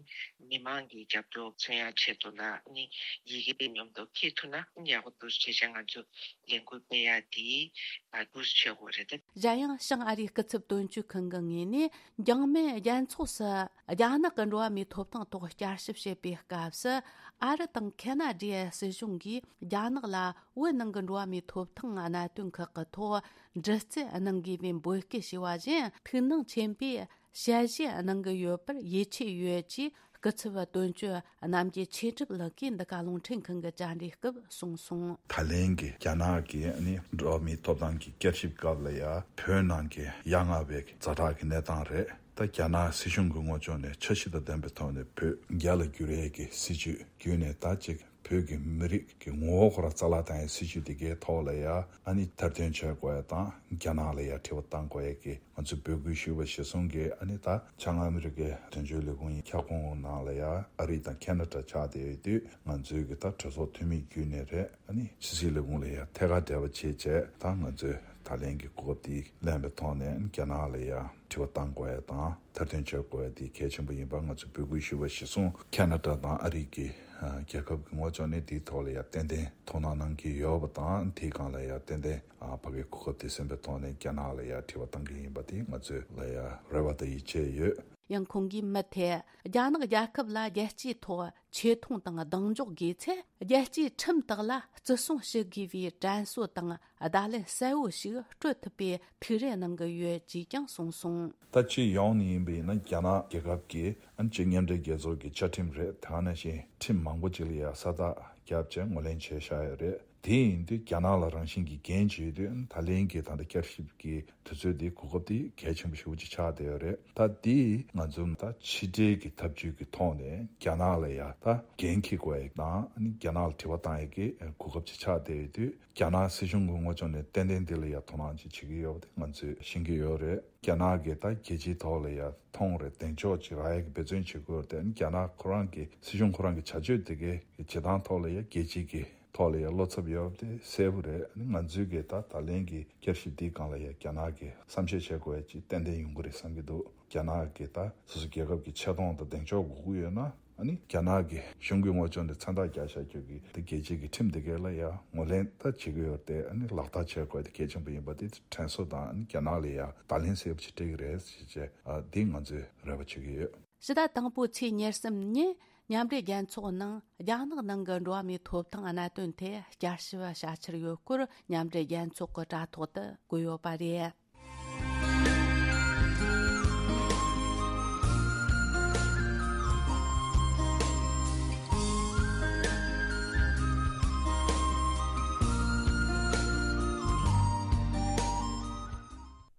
མི་མང་གི་རྒྱབ་སྐྱོར་མཚོན་ཡག་ཆེད་དུ་ལ་ཨ་ནི་ཡི་གེ་དེ་མཉམ་དུ་འཁྱེར་ཐུབ་ན་ཨ་ནི་ཡག་པོ་འདུག་བྱས་ཙང་ང་ཚོ་ལས་འགུལ་སྤེལ་ཡག་དེ་ཨ་འདུག་བྱེད་དགོས་རེད་དེ། གཞན་ཡང་། བྱང་ཨ་རིའི་སྐུ་ཚབ་དོན་གཅོད་ཁང་གི་ངོས་ནས། འཇང་མེ་རྒྱལ་ཚོགས་སུ་རྒྱ་ནག་གི་འགྲོ་བ་མིའི་ཐོབ་ཐང་ཐོག་བསྐྱར་ཞིབ་བྱེད་པའི་སྐབས་སུ། ཨ་རི་དང་ཁེ་ན་ཌའི་སྲིད་གཞུང་གིས་རྒྱ་ནག་ལ་བོད་ནང་གི་འགྲོ་བ་མིའི་ཐོབ་ཐང་གནད་དོན་ཁག་གི་ཐོག་འདྲི་རྩད་གནང་དགོས་པའི་འབོད་སྐུལ་བྱས་པ་བཞིན། ཐུགས་སྣང་ཆེན་པོས་དཔྱད་ཞིབ་གནང་གི་ཡོད་པར་ཡིད་ཆེས་ཡོད་ཅེས། སྐུ་ཚབ་དོན་གཅོད་རྣམ་རྒྱལ་ཆོས་གྲུབ་ལགས་ཀྱིས་འདི་ག་རླུང་འཕྲིན་ཁང་གི་བཅར་འདྲིའི་སྐབས་གསུངས་སོང་། ད་ལན་གྱི་རྒྱ་ནག་གི་ཨ་ནི་འགྲོ་བ་མིའི་ཐོབ་ཐང་གི་བསྐྱར་ཞིབ་སྐབས་ལ་ཡ་བོད་ནང་གི་ཡ་ང་བའི་ཛ་དྲག་གི་གནས་སྟངས་རེད། ད་རྒྱ་ནག་སྲིད་གཞུང་གི་ངོས་ཕྱོགས་ནས་འཆར་གཞི་དང་ལྡན་པའི་ཐོག་ནས་བོད་རྒྱ་ལ་བསྒྱུར་ཡས་ཀྱི་སྲིད་ཇུས་བརྒྱུད་ནས། ད་ཅིག་བོད་ཀྱི་མི་རིགས་ཀྱི་ངོ་བོ་ཁོ་རང་རྩ་བརླག་བཏང་ཡས་སྲིད་ཇུས་དེ་གའི་ཐོག་ལ་ཡ་ཨ་ནི་མཐར་དོན་བྱེད་དགོས་ཡས་དང་། རྒྱ་ནག་ལ་ཡ་དྲི་བ་བཏང་དགོས་ཡས་ཀྱི། ང་ཚོས་འབོད་སྐུལ་ཞུས་པ་གཞིར་བཟུང་གིས། ཨ་ནི་ད་བྱང་ཨ་མི་རི་ཀའི་དོན་གཅོད་ལས་ཁུངས་ཡི་ཁྱབ་ཁོངས་ནང་ལ་ཡ་ཨ་རི་དང་ཁེ་ན་ཌ་ཆགས་བསྡད་ཡོད་དུས། ང་ཚོའི་གི་ད་གྲོས་ཚོགས་འཐུས་མི་བརྒྱུད་ནས་རེད། ཨ་ནི་ཕྱི་སྲིད་ལས་ཁུངས་ལ་ཡ་ཐད་ཀར་འབྲེལ་བ་བྱས་བྱས། ད་ང་ཚོས་ད་ལན་གྱི་གོ་སྐབས་དེ་ལེན་པའི་ཐོག་ནས། ཨ་ནི་རྒྱ་ནག་ལ་ཡ་དྲི་བ་བཏང་དགོས་ཡ་དང་། མཐར་དོན་བྱེད་དགོས་ཡ་དེ་གལ་ཆེན་པོ་ཡིན་པ་ང་ཚོས་འབོད་སྐུལ་ཞུས་པ་གཞིར་བཟུང་། ཁེ་ན་ཌ་དང་ཨ་རི་གི་ཨ་རྒྱལ་ཁབ་ཀྱི་ངོས་ཕྱོགས་ནས་དེའི་ཐོག་ལ་ཡ་ཏན་ཏན་དོ་སྣང་གནང་གི་ཡོད་པ་དང་། དེའི་སྒང་ལ་ཡ་ཏན་ཏན་ཨ་ཕ་གིའི་གོ་སྐབས་དེ་ཟིན་པའི་ཐོག་ནས་རྒྱ་ནག་ལ་ཡ་དྲི་བ་བཏང་གི་ཡིན་པ་དེ་ང་ཚོས་ལ་ཡ་རེ་བ་དང་ཡིད་ཆེས་ཡོད། ཡང་ཁོང་གིས་མུ་མཐུད་རྒྱ་ནག་རྒྱལ་ཁབ་ལ་རྒྱལ་སྤྱིའི་ཐོག་ཆེ་མཐོང་དང་གདེང་འཇོག་དགོས་ཚེ། རྒྱལ་སྤྱིའི་ཁྲིམས་དག་ལ་བརྩི་སྲུང་ཞུ་དགོས་པའི་དྲན་གསོ་དང་བརྡ་ལན་གསལ་བོ་ཞིག་སྤྲོད་ཐུབ་པའི་ཐུགས་རེ་གནང་གི་ཡོད་ཅེས་ཀྱང་གསུངས་སོང་། ད་སྤྱི་ཡོངས་ནས་ཡིན་པ་ཡིན་ན། རྒྱ་ནག་རྒྱལ་ཁབ་ཀྱི་ཨ་ནི་སྤྱི་མཉམ་འབྲེལ་རྒྱལ་ཚོགས་ཀྱི་བཅའ་ཁྲིམས་རེད། དེ་ག་ནང་བཞིན་ཁྲིམས་མང་པོ་ཅིག་ལ་ཡ་ས་རྟགས་བརྒྱབ་བྱས་ངོས་ལེན་བྱས་བཞག་ཡོད་རེད། དེ་ཡིན་དུས་རྒྱ་ནག་ལ་རང་བཞིན་གྱིས་འགན་བྱེད་དུས། ད་ལན་གྱི་ད་ལྟ་བསྐྱར་ཞིབ་ཀྱི་དུས་ཚོད་འདི་གོ་སྐབས་འདི་གལ་ཆེན་པོ་ཞེ་པོ་ཅིག་ཆགས་བསྡད་ཡོད་རེད། ད་འདི་ང་ཚོ་ད་ཕྱི་འབྲེལ་གྱི་ཐབས་ཇུས་ཀྱི་ཐོག་ནས་རྒྱ་ནག་ལ་ཡ་ད་འགན་འཁྱེར་དགོས་ཡ་དང་། ཨ་ནི་རྒྱ་ནག་ལ་དྲི་བ་བཏང་ཡ་གི་གོ་སྐབས་ཅིག་ཆགས་བསྡད་ཡོད་དུས། རྒྱ་ནག་སྲིད་གཞུང་གི་ངོས་ཕྱོགས་ནས་ཏན་ཏན་འདི་ལ་ཡ་དོ་སྣང་ཅིག་བྱེད་ཀྱི་ཡོད་པ་དེ་ང་ཚོས་ཤེས་ཀྱི་ཡོད་རེད། རྒྱ་ནག་གིས་ད་རྒྱལ་སྤྱིའི་ཐོག་ལ་ཡ་མཐོང་རེ་གདེང་འཇོག་ཅིག་རག་ཡ་གི་འབད་བརྩོན་བྱེད་ཀྱི་ཡོད་རེད་དེ། ཨ་ནི་རྒྱ་ནག་ཁོ་རང་གི་སྲིད་གཞུང་ཁོ་རང་གི་བྱ་སྤྱོད་དེ་གའི་བྱེད་སྟངས་ཐོག་ལ་ཡ་རྒྱལ་སྤྱི་གི་ཐོག་ལ་ཡ་བློ་འཚབ་ཡོད་པ་དེ་གསལ་པོ་རེད། ཨ་ནི་ང་ཚོས་གི་ད་ད་ལན་གྱི་བསྐྱར་ཞིབ་འདིའི་སྒང་ལ་ཡ་རྒྱ་ནག་གིས་བསམ་ཤེས་བྱེད་དགོས་ཡ་ཅིག་ཏན་ཏན་ཡོང་གི་རེད་བསམ་གྱི་འདུག། རྒྱ་ནག་གིས་ད་སོ་སོ་རྒྱལ་ཁབ་ཀྱི་ཆེ་མཐོང་དང་གདེང་འཇོག་དགོས་ཀྱི་ཡོད་ན། ཨ་ནི་རྒྱ་ནག་གི་གཞུང་གི་དངོས་སྦྱོང་དེ་མཚན་རྟགས་རྒྱག་བཞག་རྒྱུ་གི་དེ་རྒྱལ་སྤྱི་གི་ཁྲིམས་དེ་གའི་ལ་ཡ་ངོས་ལེན་ད་བྱེད་ཀྱི་ཡོད་དེ། ཨ་ནི་ལག་བསྟར་བྱེད་དགོས་དེ་གལ་ཆེན་པོ་ཡིན་པ་དེ་དྲན་གསོ་དང་། ཨ་ནི་རྒྱ་ནག་ལ་ཡ་བརྡ་ལན་གསལ་པོ་ཞིག་སྤྲད་ཀྱི་རེད་ཟེར་བྱས། ཨ་འདི་ང་ཚོས་རེ་བ་བྱེད་ཀྱི་ཡོད། ཕྱི་ཟླ་དང་པོའི་ཚེས་ཉེར་གསུམ་ཉིན་མཉམ་འབྲེལ་རྒྱལ་ཚོགས་ནང་རྒྱ་ནག་ནང་གི་འགྲོ་བ་མིའི་ཐོབ་ཐང་གནད་དོན་ཐད་བསྐྱར་ཞིབ་བྱ་འཆར་ཡོད་སྐོར་མཉམ་འབྲེལ་རྒྱལ་ཚོགས་ཀྱི་དྲ་ཐོག་ཏུ་བཀོད་ཡོད་པ་རེད།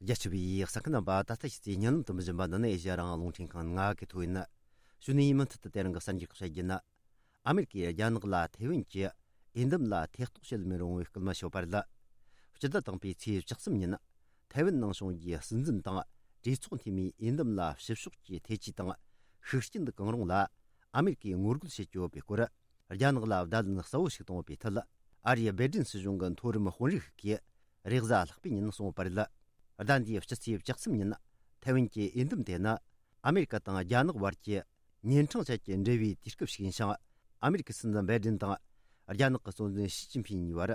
རྒྱ་ཆེ་བའི་གསན་མཁན་རྣམ་པ། ད་ལྟ་ཕྱི་ཚེས་ཉིན་ལམ་དུ་མི་བཞིན་པ་འདི་ནི་ཨེ་ཤ་ཡ་རང་དབང་རླུང་འཕྲིན་ཁང་ང་གི་ཐོ་ཡིན། གཞུག་ནས་མུ་མཐུད་དུ་དེ་རིང་གི་གསར་འགྱུར་ཁག་བཤད་རྒྱུ་ན། ཨ་མེ་རི་ཀས་རྒྱ་ནག་ལ་ཐེ་ཝན་གྱི་འོས་འདེམས་ལ་ཐེ་གཏོགས་བྱེད་མི་རུང་བའི་སྐུལ་མ་བྱས་པ་རེད། སྤྱི་ཟླ་དང་པོའི་ཚེས་བཅུ་གསུམ་ཉིན་ཐེ་ཝན་ནང་བྱུང་རྒྱུའི་སྲིད་འཛིན་དང་གྲོས་ཚོགས་འཐུས་མིའི་འོས་འདེམས་ལ་ཕྱི་ཕྱོགས་ཀྱི་ཐེ་ཇུས་དང་ཤུགས་རྐྱེན་གང་རུང་ལ། ཨ་མེ་རི་ཀས་ངོ་རྒོལ་བྱེད་ཀྱི་ཡོད་པའི་སྐོར། རྒྱ་ནག་ལ་བརྡ་ལན་གསལ་བོ་ཞིག་བཏང་ཡོད་པའི་ཐད། ཨ་རིའི་སྦེ་ཏིན་སྲིད་གཞུང་གི་མཐོ་རིམ་དཔོན་རིགས་ཤིག་གིས་རེས་གཟའ་ལྷག་པའི་ཉིན་གསུངས་པ་རེད། ཟླ་འདིའི་སྤྱི་ཚེས་བཅུ་གསུམ་ཉིན་ཐེ་ཝན་གྱི་འོས་འདེམས་དེ་ནི་ཨ་མེ་རི་ཀ་དང་རྒྱ་ནག་བར་གྱི་ཉིན་གྲངས་ཅན་གྱི་འབྲེལ་བའི་དུས་སྐབས་ཤིག་ཡིན་ཞིང་། ཨ་མེ་རི་ཀའི་སྲིད་འཛིན་སྦེ་ཏིན་དང་རྒྱ་ནག་གི་སྲིད་འཛིན་ཞི་ཅིན་ཕིན་གཉིས་བར།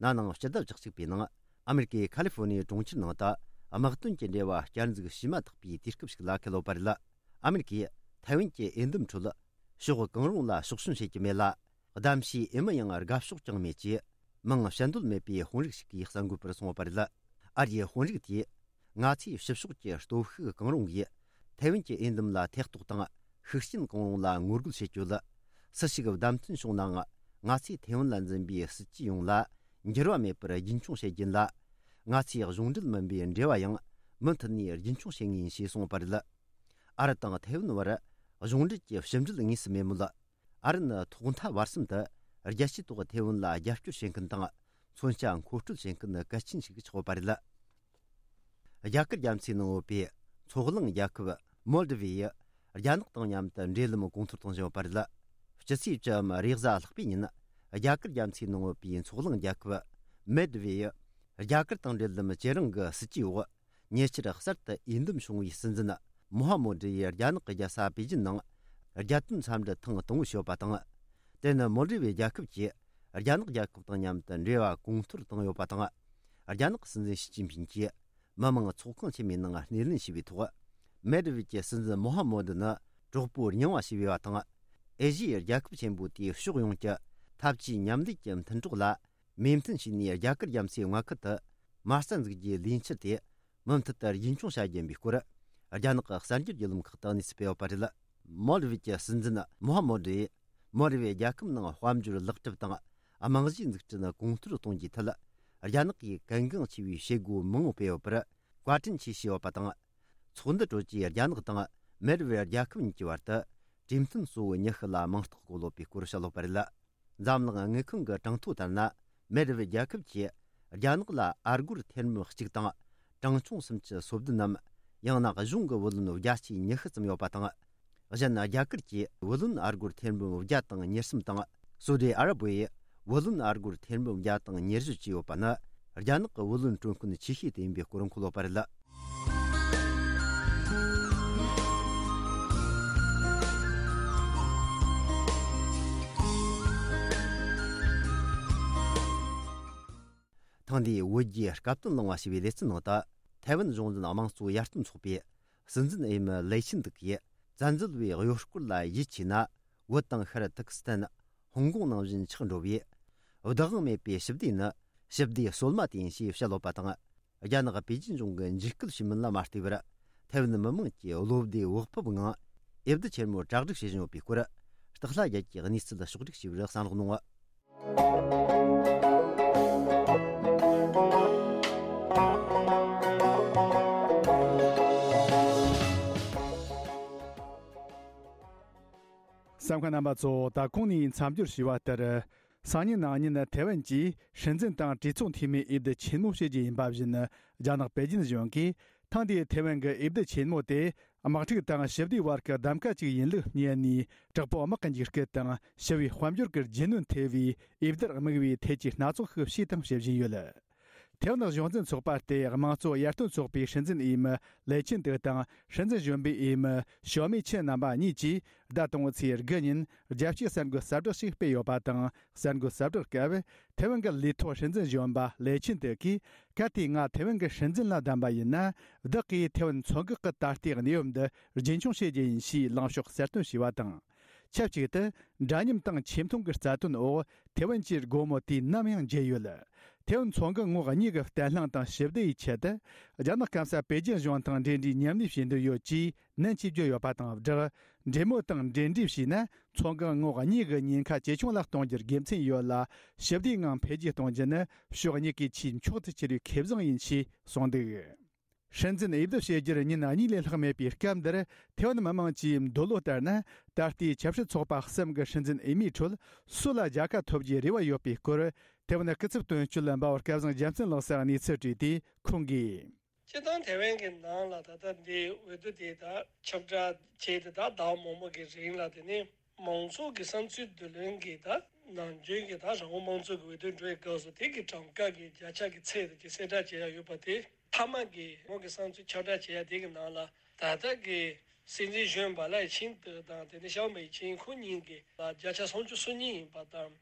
ན་ནིང་སྤྱི་ཟླ་བཅུ་གཅིག་པའི་ནང་ཨ་མེ་རི་ཀའི་ཁ་ལི་ཧྥོ་ནི་ཡའི་གྲོང་ཁྱེར་ནང་དུ་དམག་དོན་གྱི་འབྲེལ་བ་བསྐྱར་འཛུགས་བྱས་མ་ཐག་པའི་དུས་སྐབས་ཤིག་ལ་འཁེལ་ཡོད་པ་རེད། ཨ་མེ་རི་ཀས་ཐའེ་ཝན་གྱི་འོས་འདེམས་ཁྲོད་ཕྱོགས་གང་རུང་ལ་ཕྱོགས་ཞེན་བྱེད་ཀྱི་མེད་ལ། གདམ་གཤིས་ཨེ་མི་ཡང་དགའ་ཕྱོགས་ཀྱང་མེད་ཅེས་མིང་བཤད་འདོད་མེད་པའི་དཔོན་རིགས་ཤིག་གིས་གསར་འགོད་པར་གསུངས་པ་རེད། ཨ་རིའི་དཔོན་རིགས་དེས། ང་ཚོས་ཕྱི་ཕྱོགས་ཀྱི་སྟོབས་ཤུགས་གང་རུང་གིས་ཐའེ་ཝན་གྱི་འོས་འདེམས་ལ་ཐེ་གཏོགས་དང་ཤུགས་རྐྱེན་གང་རུང་ལ་ངོ་རྒོལ་བྱེད་ཆོག་ལ། སུ་ཞིག་བདམས་ཐོན་བྱུང་ནའང་ང་ཚོས་ཐའེ་ཝན་ལ་འཛིན་པའི་སྲིད་ཇུས་ཡོངས་ལ་འགྱུར་བ་མེད་པར་རྒྱུན་འཁྱོངས་བྱེད་རྒྱུ་ཡིན་ལ། ང་ཚོས་གཞུང་འབྲེལ་མིན་པའི་འབྲེལ་བ་ཡང་མུ་མཐུད་ནས་རྒྱུན་འཁྱོངས་བྱེད་ངེས་ཡིན་ཞེས་གསུངས་པ་རེད། ཨ་རི་དང་ཐའེ་ཝན་བར་གཞུང་འབྲེལ་གྱི་ཕྱི་འབྲེལ་དངོས་སུ་མེད་མོད། ཨ་རི་ནི་ཐོག་མཐའ་བར་གསུམ་དུ་རྒྱལ་སྤྱིའི་ཐོག་ཐའེ་ཝན་ལ་རྒྱབ་སྐྱོར་བྱེད་མཁན་དང་མཚོན་ཆ་མཁོ་སྤྲོད་བྱེད་མཁན་གལ་ཆེན་ཞིག་ཆགས་ཡོད་པ་རེད། རྒྱ་གར་རྒྱ་མཚོའི་ནང་ཡོད་པའི་མཚོ་གླིང་རྒྱལ་ཁབ་མོལ་ཌི་བི་ཡིས་རྒྱ་ནག་དང་མཉམ་དུ་འབྲེལ་ལམ་གོང་མཐོར་གཏོང་བཞིན་ཡོད་པ་རེད། སྤྱི་ཚེས་བཅུ་བའམ་རེས་གཟའ་ལྷག་པའི་ཉིན་རྒྱ་གར་རྒྱ་མཚོའི་ནང་ཡོད་པའི་མཚོ་གླིང་རྒྱལ་ཁབ་མོལ་ཌི་བི་ཡིས་རྒྱ་གར་དང་འབྲེལ་ལམ་བྱེད་རིང་གི་སྲིད་ཇུས་འོག་ཉེ་ཆར་གསར་དུ་འོས་འདེམས་བྱུང་བའི་སྲིད་འཛིན་མོ་ཧ་མོ་ཌི་ཡིས་རྒྱ་ནག་གི་རྒྱལ་ས་པེ་ཅིན་ནང་རྒྱལ་དོན་འཚམས་འདྲི་ཐེངས་དང་པོ་ཞུས་པ་དང་། དེ་ནི་མོལ་ཌི་བི་རྒྱལ་ཁབ་ཀྱིས་རྒྱ་ནག་རྒྱལ་ཁབ་དང་མཉམ་དུ་འབྲེལ་བ་གོང་མཐོར་བཏང་ཡོད་པ་དང་། རྒྱ་ནག་སྲིད་འཛིན་ཞི་ཅིན་ཕིན་གྱིས་མི་དམངས་ཚོགས་ཁང་ཆེན་མོའི་ནང་སྣེ་ལེན་བྱས་པའི་ཐོག་མོལ་ཌི་བི་གྱི་སྲིད་འཛིན་མོ་ཧ་མོ་ཌི་ནི་གྲོགས་པོ་རྙིང་བ་ཞིག་ཡིན་པ་དང་། ཨེ་ཤི་ཡའི་རྒྱལ་ཁབ་ཆེན་པོ་དེའི་ཕྱོགས་ཡོངས་ཀྱི་འཐབ་ཇུས་མཉམ་ལས་ཀྱི་མཐུན་གྲོགས་ལ་མོས་མཐུན་བྱས་ནས་རྒྱ་གར་རྒྱ་མཚོའི་མངའ་ཁུལ་དུ་མ་རྩ་འཛུགས་རྒྱུའི་ལས་འཆར་དེ་མུ་མཐུད་དུ་རྒྱུན་འཁྱོངས་བྱ་རྒྱུ་ཡིན་པའི་སྐོར། རྒྱ་ནག་གི་གསར་འགྱུར་བརྒྱུད་ལམ་ཁག་ཏུ་གནས་ཚུལ་སྤེལ་ཡོད་པ་རེད། མོལ་ཌི་བི་གྱི་སྲིད་འཛིན་མོ་ཧ་མོ་ཌི་ཡིས་མོལ་ཌི་བི་རྒྱལ་ཁབ་ནང་དཔལ་འབྱོར་ལེགས་གྲུབ་དང་། རྨང་གཞིའི་འཛུགས་སྐྲུན་གོང་མཐོར་གཏོང་རྒྱུའི་ཐད། རྒྱ་ནག་གིས་གལ་འགངས་ཆེ་བའི་བྱེད་སྒོ་མང་པོ་སྤེལ་ཡོད་པར་བཀའ་དྲིན་ཆེ་ཞུས་ཡོད་པ་དང་། ཚོགས་འདུ་གྲོལ་རྗེས་རྒྱ་ནག་དང་མོལ་ཌི་བི་རྒྱལ་ཁབ་གཉིས་ཀྱི་བར་དུ་གྲོས་མཐུན་གཙོ་བོ་ཉི་ཤུ་ལ་མིང་རྟགས་བཀོད་ཡོད་པའི་སྐོར་བཤད་ཡོད་པ་རེད། འཛམ་གླིང་དངུལ་ཁང་གི་གྲངས་ཐོ་ལྟར་ན། མོལ་ཌི་བི་རྒྱལ་ཁབ་ཀྱིས་རྒྱ་ནག་ལ་ཨ་སྒོར་ཐེར་འབུམ་གཅིག་དང་གྲངས་ཆུང་སུམ་ཅུ་སོ་བདུན་ནམ། ཡང་ན་གཞུང་གི་བུ་ལོན་བརྒྱ་ཆའི་ཉི་ཤུ་ཙམ་ཡོད་པ་དང་། གཞན་རྒྱ་གར་གྱིས་བུ་ལོན་ཨ་སྒོར་ཐེར་འབུམ་བརྒྱ་དང་ཉེར་གསུམ་དང་། སོ་ཌི་ཨ་རབ་བས་བུ་ལོན་ཨ་སྒོར་ཐེར་འབུམ་བརྒྱ་དང་ཉེར་བཞི་བཅས་ཡོད་པ་ནི། རྒྱ་ནག་གི་བུ་ལོན་སྤྲོད་མཁན་ཆེ་ཤོས་དེ་ཡིན་པའི་སྐོར་འཁོད་ཡོད་པ་རེད། ཐེངས་འདིའི་བོད་རྒྱའི་སྐབས་བསྟུན་གླེང་བ་ཞེས་པའི་ལེ་ཚན་ནང་དུ། ཐའེ་ཝན་གཞུང་འཛིན་དམངས་གཙོ་ཡར་ཐོན་ཚོགས་པའི་སྲིད་འཛིན་འོས་མི་ལེ་ཆིན་ཏུག་གིས། བཙན་འཛུལ་བའི་གཡོ་སྐོར་ལ་ཡིད་ཆེས་ན། བོད་དང་ཤར་ཏུར་ཀི་སི་ཐན། ཧོང་ཀོང་ནང་བཞིན་ཆགས་འགྲོ་བའི། བདག་དབང་མེད་པའི་ཞི་བདེ་ནི། ཞི་བདེ་སྲོལ་མ་དེ་ཡིན་ཞེས་བཤད་ཡོད་པ་དང་། རྒྱ་ནག་པེ་ཅིན་གཞུང་གི་འཇིགས་སྐུལ་བྱེད་མིན་ལ་མ་ལྟོས་པར། ཐའེ་ཝན་མི་དམངས་ཀྱིས་བློ་བདེ་བག་ཕེབས་ངང་། འོས་བསྡུ་ཆེན་མོར་གྲ་སྒྲིག་བྱེད་བཞིན་ཡོད་པའི་སྐོར། སྟག་ལྷ་རྒྱལ་གྱིས་གནས་ཚུལ་ཕྱོགས་བསྒྲིགས་བྱས་པར་གསན་རོགས་གནང་། གསན་མཁན་རྣམ་པ་ཚོ། ད་གོང་ནས་མཚམས་སྦྱོར་ཞུས་པ་ལྟར། སང་ཉིན་གནངས་ཉིན་ཐའེ་ཝན་གྱི་སྲིད་འཛིན་དང་གྲོས་ཚོགས་འཐུས་མིའི་འོས་བསྡུ་ཆེན་མོ་བྱེད་རྒྱུ་ཡིན་པ་བཞིན། རྒྱ་ནག་པེ་ཅིན་གཞུང་གིས་ཐེངས་འདིའི་ཐའེ་ཝན་གྱི་འོས་བསྡུ་ཆེན་མོ་དེ། དམག་འཁྲུག་དང་ཞི་བདེའི་བར་གྱི་གདམ་ག་ཅིག་ཡིན་ལུགས་བསྙད་ནས། དྲག་པོ་དམག་གི་འཇིགས་སྐུལ་དང་ཞི་བའི་དཔལ་འབྱོར་གྱི་རྒྱུ་ནོར་ཐེ་བའི་འོས་བསྡུར་དམིགས་པའི་ཐད་ཀྱི་སྣ་ཚོགས་ཤིག་བྱས་དང་བྱེད་བཞིན་ཡོད། ཐའེ་ཝན་གཞུང་འཛིན་ཚོགས་པ་སྟེ་དམངས་གཙོ་ཡར་ཐོན་ཚོགས་པའི་སྲིད་འཛིན་འོས་མི་ལེ་ཆིན་ཏེ་དང་སྲིད་འཛིན་གཞོན་པའི་འོས་མི་ཞའོ་མེ་ཆིན་རྣམ་པ་གཉིས་ཀྱིས་ཟླ་དང་པོའི་ཚེས་དགུ་ཉིན་རྒྱལ་སྤྱིའི་གསར་འགོད་གསལ་བསྒྲགས་ཤིག་སྤེལ་ཡོད་པ་དང་། གསར་འགོད་གསལ་བསྒྲགས་སྐབས། ཐའེ་ཝན་གྱི་ལས་ཐོག་སྲིད་འཛིན་གཞོན་པ་ལེ་ཆིན་ཏེ་གིས། གལ་ཏེ་ང་ཐའེ་ཝན་གྱི་སྲིད་འཛིན་ལ་བདམས་པ་ཡིན་ན། བདག་གིས་ཐའེ་ཝན་མཚོ་འགག་གི་ད་ལྟའི་གནས་བབ་འདི་རྒྱུན་འཁྱོངས་བྱེད་རྒྱུ་ཡིན་ཞེས་ལངས་ཕྱོགས་གསལ་སྟོན་བྱས་པ་དང་། ཆབས་ཅིག་ཏུ། འདྲ་མཉམ་དང་ཆེ་མཐོང་གི་རྩ་དོན་འོག་ཐའེ་ཝན་གྱི་སྒོ་མོ་དུས་ནམ་ཡང་འབྱེད་ཡོད། ཐའེ་ཝན་མཚོ་འགག་ངོགས་གཉིས་ཀྱི་བརྟན་ལྷིང་དང་ཞི་བདེ་ཡི་ཆེད་དུ། རྒྱ་ནག་སྐམ་ས་པེ་ཅིན་གཞུང་དང་འབྲེལ་འདྲིས་མཉམ་ལས་བྱེད་འདོད་ཡོད་ཅེས་ནན་གྱིས་བརྗོད་ཡོད་པ་དང་སྦྲགས། འབྲེལ་མོལ་དང་འབྲེལ་འདྲིས་བྱས་ན། མཚོ་འགག་ངོགས་གཉིས་ཀྱི་ཉེན་ཁ་ཇེ་ཆུང་ལ་གཏོང་རྒྱུར་དགེ་མཚན་ཡོད་ལ། ཞི་བདེའི་ངང་འཕེལ་རྒྱས་གཏོང་རྒྱུ་ནི་ཕྱོགས་གཉིས་ཀའི་ཆེས་མཆོག་ཏུ་གྱུར་བའི་ཁེ་བཟང་ཡིན་ཞེས་གསུངས་འདུག། སྲིད་འཛིན་འོས་བསྡུ་བྱེད་རྒྱུར་ཉིན་གཉིས་ལས་ལྷག་མེད་པའི་སྐབས་འདིར། ཐའེ་ཝན་མི་མང་གྱི་འདོད་བློ་ལྟར་ན། ད་ལྟའི་ཆབ་སྲིད་ཚོགས་པ་གསུམ་གྱི་སྲིད་འཛིན་འོས་མིའི་ཁྲོད་སུ་ལ་རྒྱལ་ཁ་ཐོབ་རྒྱུའི་རེ་བ་ཡོད་པའི་སྐོར། ཐའེ་ཝན་སྐུ་ཚབ་དོན་གཅོད་འབའ་བ་སྐལ་བཟང་རྒྱལ་མཚན་ལགས་སར་གནས་ཚུལ་དྲིས་ཏེ་ཁོང་གིས། སྤྱིར་བཏང་ཐའེ་ཝན་གྱི་ནང་ལ་ད་ལྟ་འདི་འོས་བསྡུ་དེ་དག་ཁྱབ་བསྒྲགས་བྱས་ཏེ་ད་ཟླ་བ་མང་པོ་གི་རིང་ལ། དེ་ནས་མང་ཚོགས་ཀྱི་བསམ་ཚུལ་བསྡུ་ལེན་གྱི་ད་ནམ་རྒྱུན་གྱི་ད་རང་དབང་དམངས་གཙོ་གི་འོས་བསྡུ་འགྲོ་བའི་སྐབས་སུ་དེ་གི་གྲངས་ཀ་གི་བརྒྱ་ཆ་གི་ཚད་དེ་གསལ་བསྒྲགས་བྱེད་ཡ་ཡོད་པ་དེ། མཐའ་མ་གི་ཁོང་གི་བསམ་ཚུལ་ཁྱབ་བསྒྲགས་བྱེད་ཡ་དེ་གི་ནང་ལ་ད་ལྟ་གི་སྲིད་འཛིན་གཞོན་པ་ལའེ་ཆིན་ཏེ་དང་དེ་ནས་ཞའོ་མེ་ཆིན་ཁོ་གཉིས་ཀྱི་བརྒྱ་ཆ་སུམ་ཅུ་སོ་གཉིས་ཡིན་པ་དང་།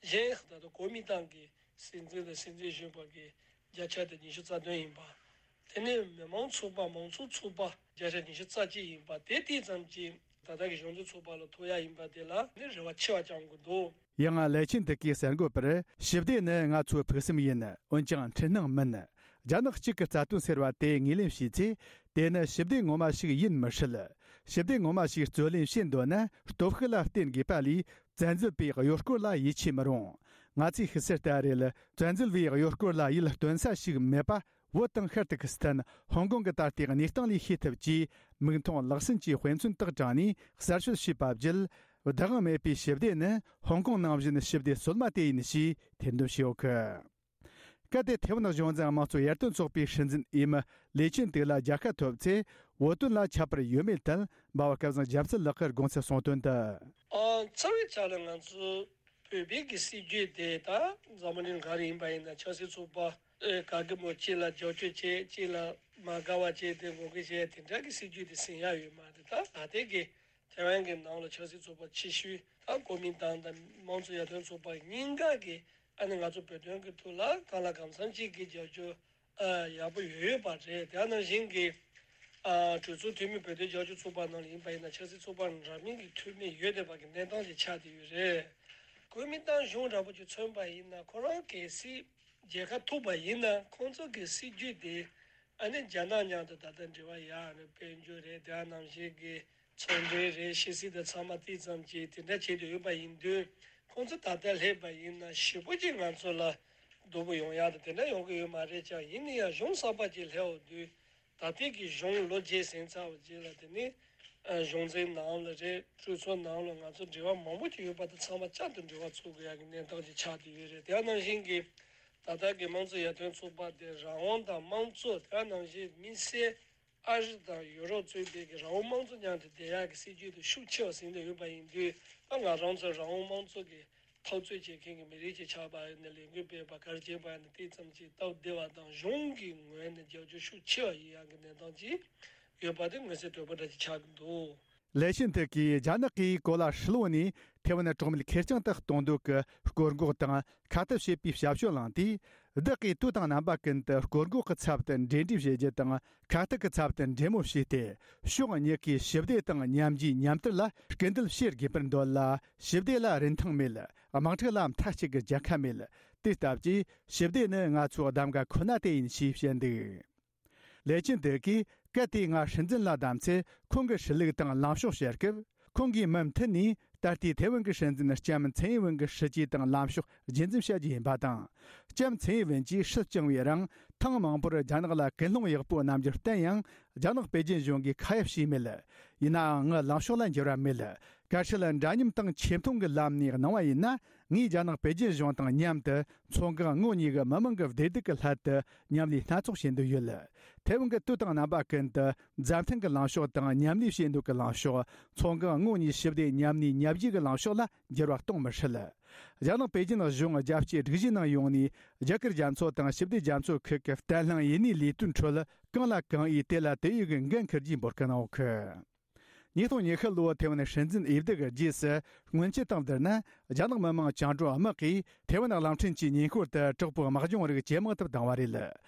གཞན་ད་ལྟ་གོ་མིན་ཏང་གི་སྲིད་འཛིན་དང་སྲིད་འཛིན་གཞོན་པ་གི་བརྒྱ་ཆ་དེ་ཉི་ཤུ་རྩ་བདུན་ཡིན་པ། དེ་ནས་མི་མང་ཚོགས་པ་མང་ཚོགས་ཚོགས་པ་བརྒྱ་ཆ་ཉི་ཤུ་རྩ་གཅིག་ཡིན་པ་དེ་དེ་ཙམ་གྱིས་ད་ལྟ་གི་གཞུང་འཛིན་ཚོགས་པ་ལ་ཐོབ་ཡ་ཡིན་པ་དེ་ལ་ནི་རེ་བ་ཆེ་བ་བཅང་དགོས་འདུག། ཡང་ལའེ་ཆིན་ཏེ་གིས་གསར་འགོད་པར། ཞི་བདེ་ནི་ང་ཚོའི་ཕུགས་བསམ་ཡིན། འོན་ཀྱང་འཁྲུལ་སྣང་མིན། རྒྱ་ནག་གཅིག་གི་རྩ་དོན་ཟེར་བ་དེ་ངོས་ལེན་བྱས་ཚེ། དེ་ནི་ཞི་བདེ་ངོ་མ་ཞིག་ཡིན་མི་སྲིད། ཞི་བདེ་ངོ་མ་ཞིག་རྩོད་ལེན་བྱེད་འདོད་ན་སྟོབས་ཤུགས་ལ་བརྟེན་དགོས་པ་ལས། བཙན་འཛུལ་པའི་གཡོ་སྐོར་ལ་ཡིད་ཆེས་མི་རུང་། ང་ཚོས་ཤེས་གསལ་ལྟར་རེད། བཙན་འཛུལ་བའི་གཡོ་སྐོར་ལ་ཡིད་རྟོན་ས་ཞིག་མེད་པ། བོད་དང་ཤར་ཏུར་ཀི་སི་ཐན། ཧོང་ཀོང་གི་ད་ལྟའི་གནས་སྟངས་ལས་ཤེས་ཐུབ་ཅེས། མིག་མཐོང་ལག་ཟིན་གྱི་དཔེ་མཚོན་དག་དྲངས་ནས་གསར་ཤོད་བྱས་པ་བརྒྱུད། བདག་དབང་མེད་པའི་ཞི་བདེ་ནི་ཧོང་ཀོང་ནང་བཞིན་ཞི་བདེ་སོལ་མ་དེ་ཡིན་ཞེས་ཐེར་འདོན་བྱས་ཡོད་གི། གལ་ཏེ་ཐའེ་ཝན་གཞུང་འཛིན་དམངས་གཙོ་ཡར་ཐོན་ཚོགས་པའི་སྲིད་འཛིན་འོས་མི་ལེ་ཆིན་ཏེ་ལ་རྒྱལ་ཁ་ཐོབ་ཚེ། བོད་དོན་ལ་ཁྱད་པར་ཡོད་མེད་ཐད། འབའ་བ་སྐལ་བཟང་རྒྱལ་མཚན་ལགས་ཀྱིས་དགོངས་ཚུལ་གསུངས་དོན་དུ། ཨ། རྩ་བའི་ཆ་ལ་ང་ཚོ་བོད་པའི་གི་སྲིད་ཇུས་དེ་ད་འཛམ་བུ་གླིང་ག་རེ་ཡིན་པ་ཡིན་ན། ཆབ་སྲིད་ཚོགས་པ་ཨེ་ག་གེ་མོ་གཅིག་ལ་རྒྱབ་སྐྱོར་བྱེད། གཅིག་ལ་མ་དགའ་བ་བྱེད། དེ་ངོ་རྒོལ་བྱེད། དེ་འདྲ་གི་སྲིད་ཇུས་དེ་ཟིན་ཡ་ཡོད་མ་རེད། ད་ད་ལྟའི་གི་ཐའེ་ཝན་གྱི་ནང་ལ་ཆབ་སྲིད་ཚོགས་པ་ཆེ་ཤོས་ད་གོ་མིན་ཏང་དང་དམངས་གཙོ་ཡར་ཐོན་ཚོགས་པ་གཉིས་ཀ་གིས་ཨ་ནི་ང་ཚོ་བོད་དོན་གྱི་ཐོག་ལ་གང་ལ་གང་འཚམ་ཅིག་གི་རྒྱབ་སྐྱོར་ཨ་ཡག་པོ་ཡོད་ཡོད་པ་རེད། དེ་ནང་བཞིན་གྱི་ཨ་གྲོས་ཚོགས་འཐུས་མི་བོད་དོན་རྒྱབ་སྐྱོར་ཚོགས་པ་ནང་ལ་ཡིན་པ་ཡིན་ན། ཆབ་སྲིད་ཚོགས་པ་འདྲ་མིན་གྱི་འཐུས་མི་ཡོད་བསྡད་པ་གི་གནས་སྟངས་ཅིག་ཆགས་བསྡད་ཡོད་རེད། གོ་མིན་ཏང་གཞུང་འདྲ་པོ་ཅིག་མཚོན་པ་ཡིན་ན། ཁོ་རང་གལ་སྲིད་རྒྱལ་ཁ་ཐོབ་པ་ཡིན་ན། ཁོང་ཚོ་གི་སྲིད་ཇུས་དེ་ཨ་ནི་རྒྱ་ནག་མཉམ་དུ་ད་ལྟ་འབྲེལ་བ་ཡག་རེད། དཔལ་འབྱོར་རེད། དེ་ནང་བཞིན་གྱི་ཚོང་འབྲེལ་རེད། ཕྱི་སྲིད་དང་ཚང་མ་དེ་ཙམ་གྱིས་དེ་འདྲ་བྱེད་དུ་ཡོད་པ་ཡིན་དུས། ཁོང་ཚོ་ད་ལྟ་སླེབས་པ་ཡིན་ན་ཞེ་པོ་ཅིག་ང་ཚོ་ལ་སྡུག་པོ་ཡོང་ཡག་དང་དེ་འདྲ་ཡོང་གི་ཡོད་མ་རེད་ཀྱང་། ཡིན་ན་ཡང་གཞུང་གསར་པ་ཅིག་སླེབས་འོང་དུས། ད་ལྟའི་གི་གཞུང་ལོ་བརྒྱད་ཟིན་ཚར་བ་རྗེས་ལ། དེ་ནི་ཨ་གཞུང་འཛིན་ནང་ལ་རེད། གྲོས་ཚོགས་ནང་ལ་ང་ཚོ་འབྲེལ་བ་མང་པོ་ཅིག་ཡོད་པ་དང་། ཚང་མ་བསྐྱར་དུ་འབྲེལ་བ་འཚོལ་དགོས་ཡག་གི་གནས་སྟངས་ཅིག་ཆགས་བསྡད་ཡོད་རེད། དེ་ནང་བཞིན་གྱི་ད་ལྟ་གི་དམངས་གཙོ་ཡར་ཐོན་ཚོགས་པ་དེ་རང་དབང་དང་དམངས་གཙོ། དེ་ནང་བཞིན་དམིགས་བསལ་ཨ་རི་དང་ཡུ་རོབ་གཙོས་པའི་གི་རང་དབང་དམངས་གཙོ་མཉམ་དུ་བསྡད་ཡག་གི་སྲིད་ཇུས་དེ་ཤུགས་ཆེ་བ་ཟིན་བསྡད་ཡོད་པ་ཡིན་དུས། ད་ང་རང་ཚོ་རང་དབང་དམངས་གཙོ་གི་འཐབ་རྩོད་བྱེད་མཁན་གྱི་མི་རིགས་ཅིག་ཆགས་པ་ཡིན་ན། ལས་འགུལ་སྤེལ་བ་ག་རེ་བྱེད་པ་ཡིན་ན། དེ་ཙམ་གྱིས་སྟབས་བདེ་བ་དང་། གཞུང་གི་ངོས་ནས་རྒྱབ་སྐྱོར་ཤུགས་ཆེ་བ་ཡིན་ཡག་གི་གནས་སྟངས་ཅིག་ཡོད་པ་དེ་མངོན་གསལ་དོད་པོ་འདྲ་ཅིག་ཆགས་ཀྱི་འདུག། ལེ་ཤིན་ཏེ་གིས་རྒྱ་ནག་གིས་གོ་ལ་ཧྲིལ་བོ་ནས་ཐེ་ཝན་གྲོང་མི་ཁེར་རྐྱང་དུ་གཏོང་འདོད་ཀྱི་སྐོར་འགོག་དང་ཁ་གཏད་བྱེད་པའི་ཞབས་ཞུ་བླངས་དུས། བདག་གིས་དུས་དང་རྣམ་པ་ཀུན་ཏུ་སྐོར་འགོག་གི་ཚབ་ཏུ་འབྲེལ་འདྲིས་བྱེད་རྒྱུ་དང་། ཁ་གཏད་ཀྱི་ཚབ་ཏུ་འབྲེལ་མོལ་བྱས་ཏེ། ཕྱོགས་གཉིས་ཀའི་ཞི་བདེ་དང་མཉམ་རྒྱུའི་མཉམ་དར་ལ་སྐུལ་འདེད་བྱེད་དགོས་པར་འདོད་ལ། ཞི་བདེ་ལ་རིན་ཐང་མེད། དམག་འཁྲུག་ལ་མཐའ་གཅིག་གི་རྒྱལ་ཁ་མེད། དེ་ལྟ་བུའི་ཞི་བདེ་ནི་ང་ཚོའི་གདམ་ག་ཁོ་ན་དེ་ཡིན་ཞེས་བཤད་འདུག། ལེ་ཅིན་ཏེ་གིས་གལ་ཏེ་ང་སྲིད་འཛིན་ལ་བདམས་ཚེ། ཁོང་གི་སྲིད་ལུགས་དང་ལངས་ཕྱོགས་བཤད་སྐབས། ཁོང་གིས་མུ་མཐུད་ནས་ད་ལྟའི་ཐའེ་ཝན་གྱི་སྲིད་འཛིན་ལྕམ་ཚན་ཡིན་ཝེན་གྱི་སྲིད་ཇུས་དང་ལངས་ཕྱོགས་རྒྱུན་འཛིན་བྱ་རྒྱུ་ཡིན་པ་དང་། ལྕམ་ཚན་ཡིན་ཝེན་གྱིས་སྲིད་སྐྱོང་བའི་རིང་ཐེངས་མང་པོར་རྒྱ་ནག་ལ་ཀུན་སློང་ཡག་པོ་རྣམ་འགྱུར་བསྟན་ཡང་། རྒྱ་ནག་པེ་ཅིན་གཞུང་གིས་ཁ་གཡར་བྱས་མེད། ཡིན་ནའང་ངའི་ལངས་ཕྱོགས་ལ་འགྱུར་བ་མེད། བཀའ་ཁྲིར་འདྲ་མཉམ་དང་ཆེ་མཐོང་གི་ལམ་ནས་གནང་བ་ཡིན་ན། ངས་རྒྱ་ནག་པེ་ཅིན་གཞུང་དང་མཉམ་དུ་མཚོ་འགག་ངོགས་གཉིས་ཀྱི་མི་མང་གི་བདེ་སྡུག་གི་སླད་དུ་མཉམ་ལས་སྣ་ཚོགས་བྱེད་འདོད་ཡོད། ཐའེ་ཝན་གྱི་དུས་དང་རྣམ་པ་ཀུན་ཏུ་མཛའ་མཐུན་གྱི་ལངས་ཕྱོགས་དང་མཉམ་ལས་བྱེད་འདོད་ཀྱི་ལངས་ཕྱོགས། མཚོ་འགག་ངོགས་གཉིས་ཞི་བདེ་མཉམ་གནས་མཉམ་བཞེས་ཀྱི་ལངས་ཕྱོགས་ལ་འགྱུར་བ་གཏོང་མི་སྲིད། རྒྱ་ནག་པེ་ཅིན་གཞུང་རྒྱལ་སྤྱིའི་སྒྲིག་གཞིའི་ནང་ཡོང་ནས། རྒྱ་གར་རྒྱ་མཚོ་དང་ཞི་བདེ་རྒྱ་མཚོ་ཁུལ་གྱི་བརྟན་ལྷིང་ཡུན་གནས་ལས་དོན་ཁྲོད་གང་ལ་གང་འོས་དེ་ལ་དེ་འོས་ཀྱི་འགན་འཁུར་རྒྱུའི་འབོད་སྐུལ་གནང་ཡོད་གི། ཉིས་སྟོང་ཉི་ཤུ་ལོའི་ཐེ་ཝན་སྲིད་འཛིན་འོས་བསྡུ་གི་རྗེས་སུ། སྔོན་ཆད་དང་བསྡུར་ན། རྒྱ་ནག་མི་དམངས་བཅིངས་འགྲོལ་དམག་གིས་ཐེ་ཝན་གླིང་ཕྲན་གྱི་ཉེ་འཁོར་དུ་དྲག་པོའི་དམག་སྦྱོང་རིགས་ཇེ་མང་དུ་བཏང་བ་རེད།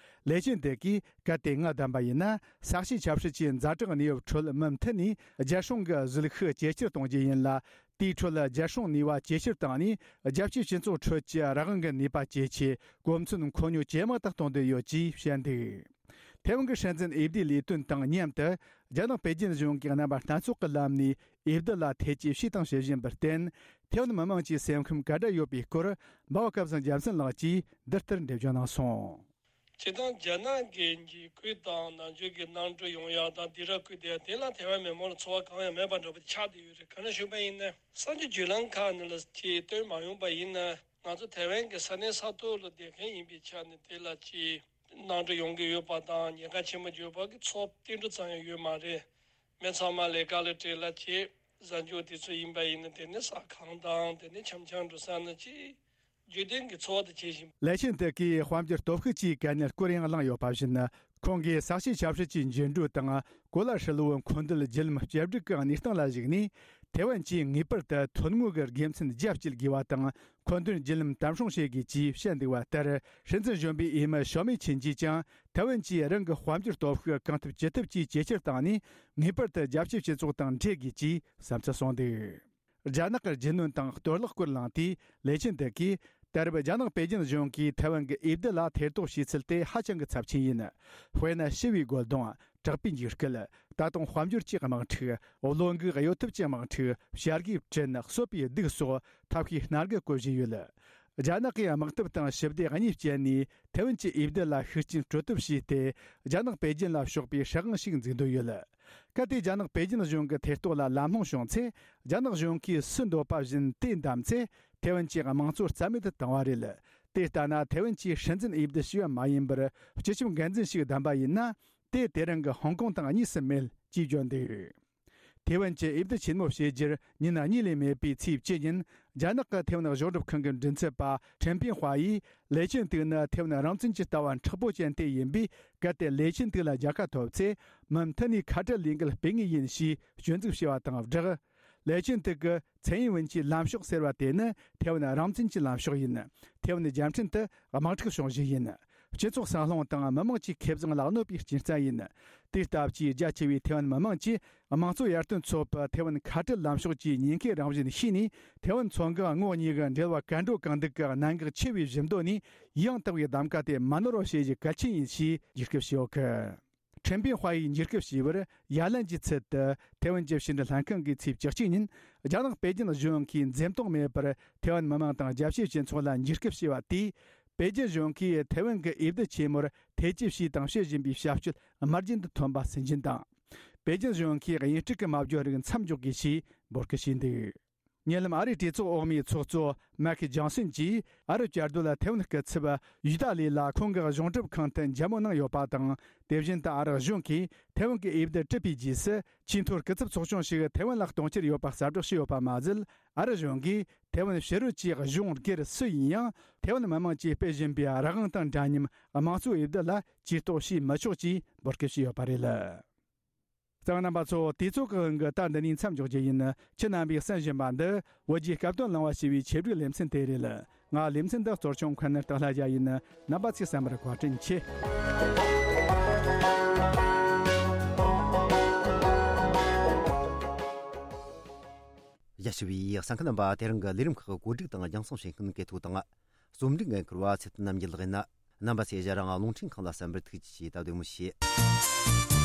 ལེ་ཆིན་ཏེ་གིས་གལ་ཏེ་ང་བདམས་པ་ཡིན་ན། ས་གཤིས་ཆབ་སྲིད་ཀྱི་ཛ་དྲག་གནས་བབ་ཁྲོད་མུ་མཐུད་ནས་རྒྱལ་སྲུང་གི་གཟིགས་ཤུགས་ཇེ་ཆེར་གཏོང་རྒྱུ་ཡིན་ལ། དེའི་ཁྲོད་རྒྱལ་སྲུང་ནུས་པ་ཇེ་ཆེར་བཏང་ནས། རྒྱལ་སྤྱིའི་སྤྱི་ཚོགས་ཁྲོད་ཀྱི་རང་དབང་གི་ནུས་པ་ཇེ་ཆེ། གོ་མཚོན་མཁོ་ཉོ་ཇེ་མང་དུ་གཏོང་འདོད་ཡོད་ཅེས་བཤད་འདུག་ཐེ་ཝན་གྱི་སྲིད་འཛིན་འོས་བསྡུའི་ལས་དོན་དང་མཉམ་དུ། རྒྱ་ནག་པེ་ཅིན་གཞུང་གིས་རྣམ་པ་སྣ་ཚོགས་ཀྱི་ལམ་ནས་འོས་བསྡུ་ལ་ཐེ་ཇུས་བྱས་དང་བྱེད་བཞིན་པར་བརྟེན། ཐེ་ཝན་མི་དམངས་ཀྱི་སེམས་ཁམས་ག་འདྲ་ཡོད་པའི་སྐོར། འབའ་བ་སྐལ་བཟང་རྒྱལ་མཚན་ལགས་ཀྱིས་འདི་ལྟར་འགྲེལ་བརྗོད་གནང་སོང་། སྤྱིར་བཏང་རྒྱ་ནག་གི་འཇིགས་སྐུལ་དང་ནང་ཆོས་ཀྱི་གནམ་གྲུ་ཡོང་ཡག་དང་སྡིགས་ར་བསྐུལ་བསྡད་ཡག་དེ་ལ་ཐེ་ཝན་མི་མང་ལ་ཚོར་བ་གང་ཡང་མེད་པ་འདྲ་པོ་ཆགས་བསྡད་ཡོད་རེད། ག་རེ་ཞུས་པ་ཡིན་ན། གསར་འགྱུར་བརྒྱུད་ལམ་ཁག་ནང་ལ་ཅིག་བཏོན་མ་ཡོང་པ་ཡིན་ན། ང་ཚོ་ཐེ་ཝན་གྱི་ས་གནས་ས་ཐོག་ལ་བསྡད་མཁན་ཡིན་པའི་ཆ་ནས། དེ་ལ་ཅིག་གནམ་གྲུ་ཡོང་གི་ཡོད་པ་དང་ཉེན་ཁ་ཆེན་པོ་ཡོད་པ་གི་ཚོར་ཏིལ་འབྲུ་ཙམ་ཡང་ཡོད་མ་རེད། མི་ཚང་མ་ལས་ཀ་ལ་བྲེལ་ལ་བྱེད། གཟའ་མཇུག་དེ་ཚོ་ཡིན་པ་ཡིན་ན། དེ་ནི་ཟ་ཁང་དང་དེ་ནི་འཆམ་འཆམ་འགྲོ་ས་ན་ཅིག་རྒྱུན་ལྡན་གྱི་འཚོ་བ་དེ་བྱེད་བཞིན། ལེ་ཆིན་ཏེ་གིས་དཔལ་འབྱོར་སྟོབས་ཤུགས་ཀྱི་གལ་གནད་སྐོར་ཡང་གླེང་ཡོད་པ་བཞིན། ཁོང་གིས་ས་གཤིས་ཆབ་སྲིད་ཀྱི་འགྱུར་འགྲོས་དང་གོ་ལ་ཧྲིལ་བོའི་འཁོར་འདས་རྒྱུན་ལམ་བཅོས་སྒྲིག་གི་གནས་སྟངས་ལ་གཞིགས་ནས། ཐེ་ཝན་གྱིས་ངེས་པར་དུ་ཐོན་དངོས་ཀྱི་དགེ་མཚན་རྒྱ་བསྐྱེད་དགོས་པ་དང་། འཁོར་འདས་རྒྱུན་ལམ་དམ་སྲུང་བྱེད་དགོས་ཅེས་བཤད་འདུག་པ་ལྟར། སྲིད་འཛིན་གཞོན་པའི་འོས་མི་ཞའོ་མེ་ཆིན་གྱིས་ཀྱང་། ཐེ་ཝན་གྱིས་རང་གི་དཔལ་འབྱོར་སྟོབས་ཤུགས་གང་ཐུབ་ཅི་ཐུབ་ཀྱིས་ཇེ་ཆེར་བཏང་ནས། ངེས་པར་དུ་རྒྱལ་སྤྱིའི་སྤྱི་ཚོགས་དང་འཕྲད་དགོས་ཅེས་བསམ་ཚུལ་གསུངས་འདུག་རྒྱ་ནག་གི་རྒྱུས་ལོན་དང་གཏོར་བརླག་སྐོར་གླེང་དུས། ལེ་ཆིན་ཏེ་གིས། ད་རེབ་རྒྱ་ནག་པེ་ཅིན་གཞུང་གིས་ཐེ་ཝན་གྱི་འོས་བསྡུ་ལ་ཐེ་གཏོགས་བྱས་ཚུལ་དེ་ཧ་ཅང་གི་ཚབས་ཆེན་ཡིན། དཔེར་ན། ཞི་བའི་རྒོལ་རྡུང་། དྲག་པོའི་འཇིགས་སྐུལ། ད་དུང་དཔལ་འབྱོར་གྱི་དམག་འཁྲུག་བློ་འགུག་གཡོ་ཐབས་ཀྱི་དམག་འཁྲུག་བྱ་དགའི་བྲིན། གསོད་པའི་སྡུག་སོགས་ཐབས་ཤེས་སྣ་ཁ་བཀོལ་བཞིན་ཡོད། རྒྱ་ནག་གིས་དམག་འཐབ་དང་ཞི་བདེ་གཉིས་སྤྱད་ནས་ཐེ་ཝན་གྱི་འོས་བསྡུ་ལ་ཤུགས་རྐྱེན་སྤྲོད་ཐབས་བྱས་ཏེ། རྒྱ་ནག་པེ་ཅིན་ལ་ཕྱོགས་པའི་སྲིད་དབང་ཞིག་འཛུགས་འདོད་ཡོད། གལ་ཏེ་རྒྱ་ནག་པེ་ཅིན་གཞུང་གི་ཐེ་གཏོགས་ལ་ལམ་ལྷོང་བྱུང་ཚེ། རྒྱ་ནག་གཞུང་གིས་སུ་འདོད་པ་བཞིན་དེ་བདམས་ཚེ། ཐེ་ཝན་གྱི་དམངས་གཙོ་རྩ་མེད་དུ་བཏང་བ་རེད། དེ་ལྟ་ན། ཐེ་ཝན་གྱིས་སྲིད་འཛིན་འོས་བསྡུ་བྱས་པ་མ་ཡིན་པར། སྤྱི་ཁྱབ་འགན་འཛིན་ཞིག་བདམས་པ་ཡིན་ན། དེ་དེ་རིང་གི་ཧོང་ཀོང་དང་གཉིས་སུ་མེད་ཅེས་བརྗོད་འདུག་ཐེ་ཝན་གྱི་འོས་བསྡུ་ཆེན་མོ་བྱེད་རྒྱུར་ཉིན་གཉིས་ལས་མེད་པའི་ཚེས་བཅུ་ཉིན། རྒྱ་ནག་གི་ཐེ་ཝན་གཞུང་སྒྲུབ་ཁང་གི་མགྲིན་ཚབ་པ་ཁྲེན་པིན་ཧྭ་ཡིས། ལེ་ཆིན་ཏེ་ནི་ཐེ་ཝན་རང་བཙན་གྱི་ལྟ་བ་མཁྲེགས་པོ་ཅན་དེ་ཡིན་པས། གལ་ཏེ་ལེ་ཆིན་ཏེ་ལ་རྒྱལ་ཁ་ཐོབ་ཚེ། མུ་མཐུད་ནས་ཁ་བྲལ་ལས་འགུལ་སྤེལ་ངེས་ཡིན་ཞེས་སྐྱོན་འཛུགས་བྱས་པ་དང་སྦྲགས། ལེ་ཆིན་ཏེ་གི་མཚན་ཡིན་ཝུན་གྱི་ལམ་ཕྱོགས་ཟེར་བ་དེ་ནི་ཐེ་ཝན་རང་བཙན་གྱི་ལམ་ཕྱོགས་ཡིན། ཐེ་ཝན་རྒྱལ་ཕྲན་དུ་དམག་འཁྲུག་བྱུང་གཞི་ཡིན། སྤྱི་ཚོགས་སྲང་ལྷུང་དང་མི་དམངས་ཀྱི་ཁེ་བཟང་ལ་གནོད་པའི་རྐྱེན་རྩ་ཡིན། དེ་ལྟ་བུའི་རྒྱ་ཆེ་བའི་ཐེ་ཝན་མི་དམངས་ཀྱིས་དམངས་གཙོ་ཡར་ཐོན་ཚོགས་པ་ཐེ་ཝན་ཁ་བྲལ་ལམ་ཕྱོགས་ཀྱི་ཉེན་ཁའི་རང་བཞིན་ཤེས་ནས། ཐེ་ཝན་མཚོ་འགག་ངོགས་གཉིས་ཀྱི་འབྲེལ་བ་གར་འགྲོ་གང་འདུག་གི་གནད་འགག་ཆེ་བའི་གཞི་འདོད་ནས། ཡང་དག་པའི་གདམ་ག་དེ་མ་ནོར་བ་བྱེད་རྒྱུ་གལ་ཆེན་ཡིན་ཞེས་འཇིགས་སྐུལ་བྱས་ཡོད་གི། ཁྲེན་པིན་ཧྭ་ཡིས་འཇིགས་སྐུལ་བྱས་པར། ཡ་ལན་གྱི་ཚུལ་དུ་ཐེ་ཝན་གྱི་ཕྱི་འབྲེལ་ལྷན་ཁང་གིས་ཚེས་བཅུ་གཅིག་ཉིན། རྒྱ་ནག་པེ་ཅིན་གཞུང་གིས་འཛེམ་དོགས་མེད་པར་ཐེ་ཝན་མི་དམངས་དང་རྒྱལ་སྤྱིའི་སྤྱི་ཚོགས་ལ་འཇིགས་སྐུལ་བྱས་པ་དེས། པེ་ཅིན་གཞུང་གིས་ཐེ་ཝན་གྱི་འོས་བསྡུ་ཆེན་མོར་ཐེ་ཇུས་བྱས་དང་བྱེད་བཞིན་པའི་བྱ་སྤྱོད་དམར་རྗེན་དུ་ཐོན་པ་སུན་འབྱིན་དང་། པེ་ཅིན་གཞུང་གིས་དབྱིན་སྤྲུག་གི་མ་བརྗོད་རིགས་མཚམས་འཇོག་དགོས་ཞེས་འབོད་སྐུལ་བྱས་འདུག་ཉེ་ལམ་ཨ་རིའི་གྲོས་ཚོགས་འོག་མའི་ཚོགས་གཙོ་མེག་ཇོན་སན་གྱིས། ཨ་རི་བཅའ་སྡོད་ལ་ཐེ་ཝན་སྐུ་ཚབ་ཡུ་ཏཱ་ལི་ལ་ཁོང་གི་གཞུང་སྒྲུབ་ཁང་དུ་མཇལ་མོལ་གནང་ཡོད་པ་དང་། དེ་བཞིན་དུ་ཨ་རི་གཞུང་གིས་ཐེ་ཝན་གྱི་འོས་བསྡུ་གྲུབ་པའི་རྗེས་སུ། ཆེས་མཐོའི་སྐུ་ཚབ་ཚོགས་ཆུང་ཞིག་ཐེ་ཝན་ལ་གཏོང་འཆར་ཡོད་པ་གསལ་བསྒྲགས་བྱས་ཡོད་པ་མ་ཟད། ཨ་རི་གཞུང་གིས་ཐེ་ཝན་ཕྱི་རོལ་གྱི་གཞུང་སྒེར་སུ་ཡིན་ཡང་། ཐེ་ཝན་མི་དམངས་ཀྱིས་སྤེལ་བཞིན་པའི་རང་དབང་དང་འདྲ་མཉམ་དམངས་གཙོའི་འོས་བསྡུ་ལ་ཇུས་གཏོགས་བྱས་མི་ཆོག་ཅེས་འབོད་སྐུལ་བྱས་ཡོད་པ་རེད། གཙང་རྣམ་པ་ཚོ། དུས་ཚོད་ཀྱི་དབང་གིས་ད་འདི་ནས་མཚམས་འཇོག་རྒྱུ་ཡིན། ཁྱེད་རྣམ་པས་གསན་བཞིན་པ་འདི། བོད་ཀྱི་སྐབས་དོན་གླེང་བ་ཞེས་པའི་ཆེད་སྒྲིག་ལེ་ཚན་དེ་རེད། ང་ལེ་ཚན་འདི་གཙོ་སྐྱོང་མཁན་སྟག་ལྷ་རྒྱལ་ཡིན། རྣམ་པ་ཚོས་གསན་པར་བཀའ་དྲིན་ཆེ། ཡ། ཞུ་བའི་གསན་མཁན་རྣམ་པ། དེ་རིང་གི་ལས་རིམ་ཁག་གི་བཀོད་སྒྲིག་དང་རྒྱང་སྲིང་བྱེད་མཁན་གལ་ཐོ་དང་། རྩོམ་སྒྲིག་འགན་འཁུར་བ་ཚེ་བརྟན་རྣམ་རྒྱལ་ལགས་ཡིན། རྣམ་པ་ཚོས་ཞལ་རང་རླུང་འཕྲིན་ཁང་ལ་གསན་པར་ཐུགས་རྗེ་ཆེ། ད་བདེ་མོ་བྱོས།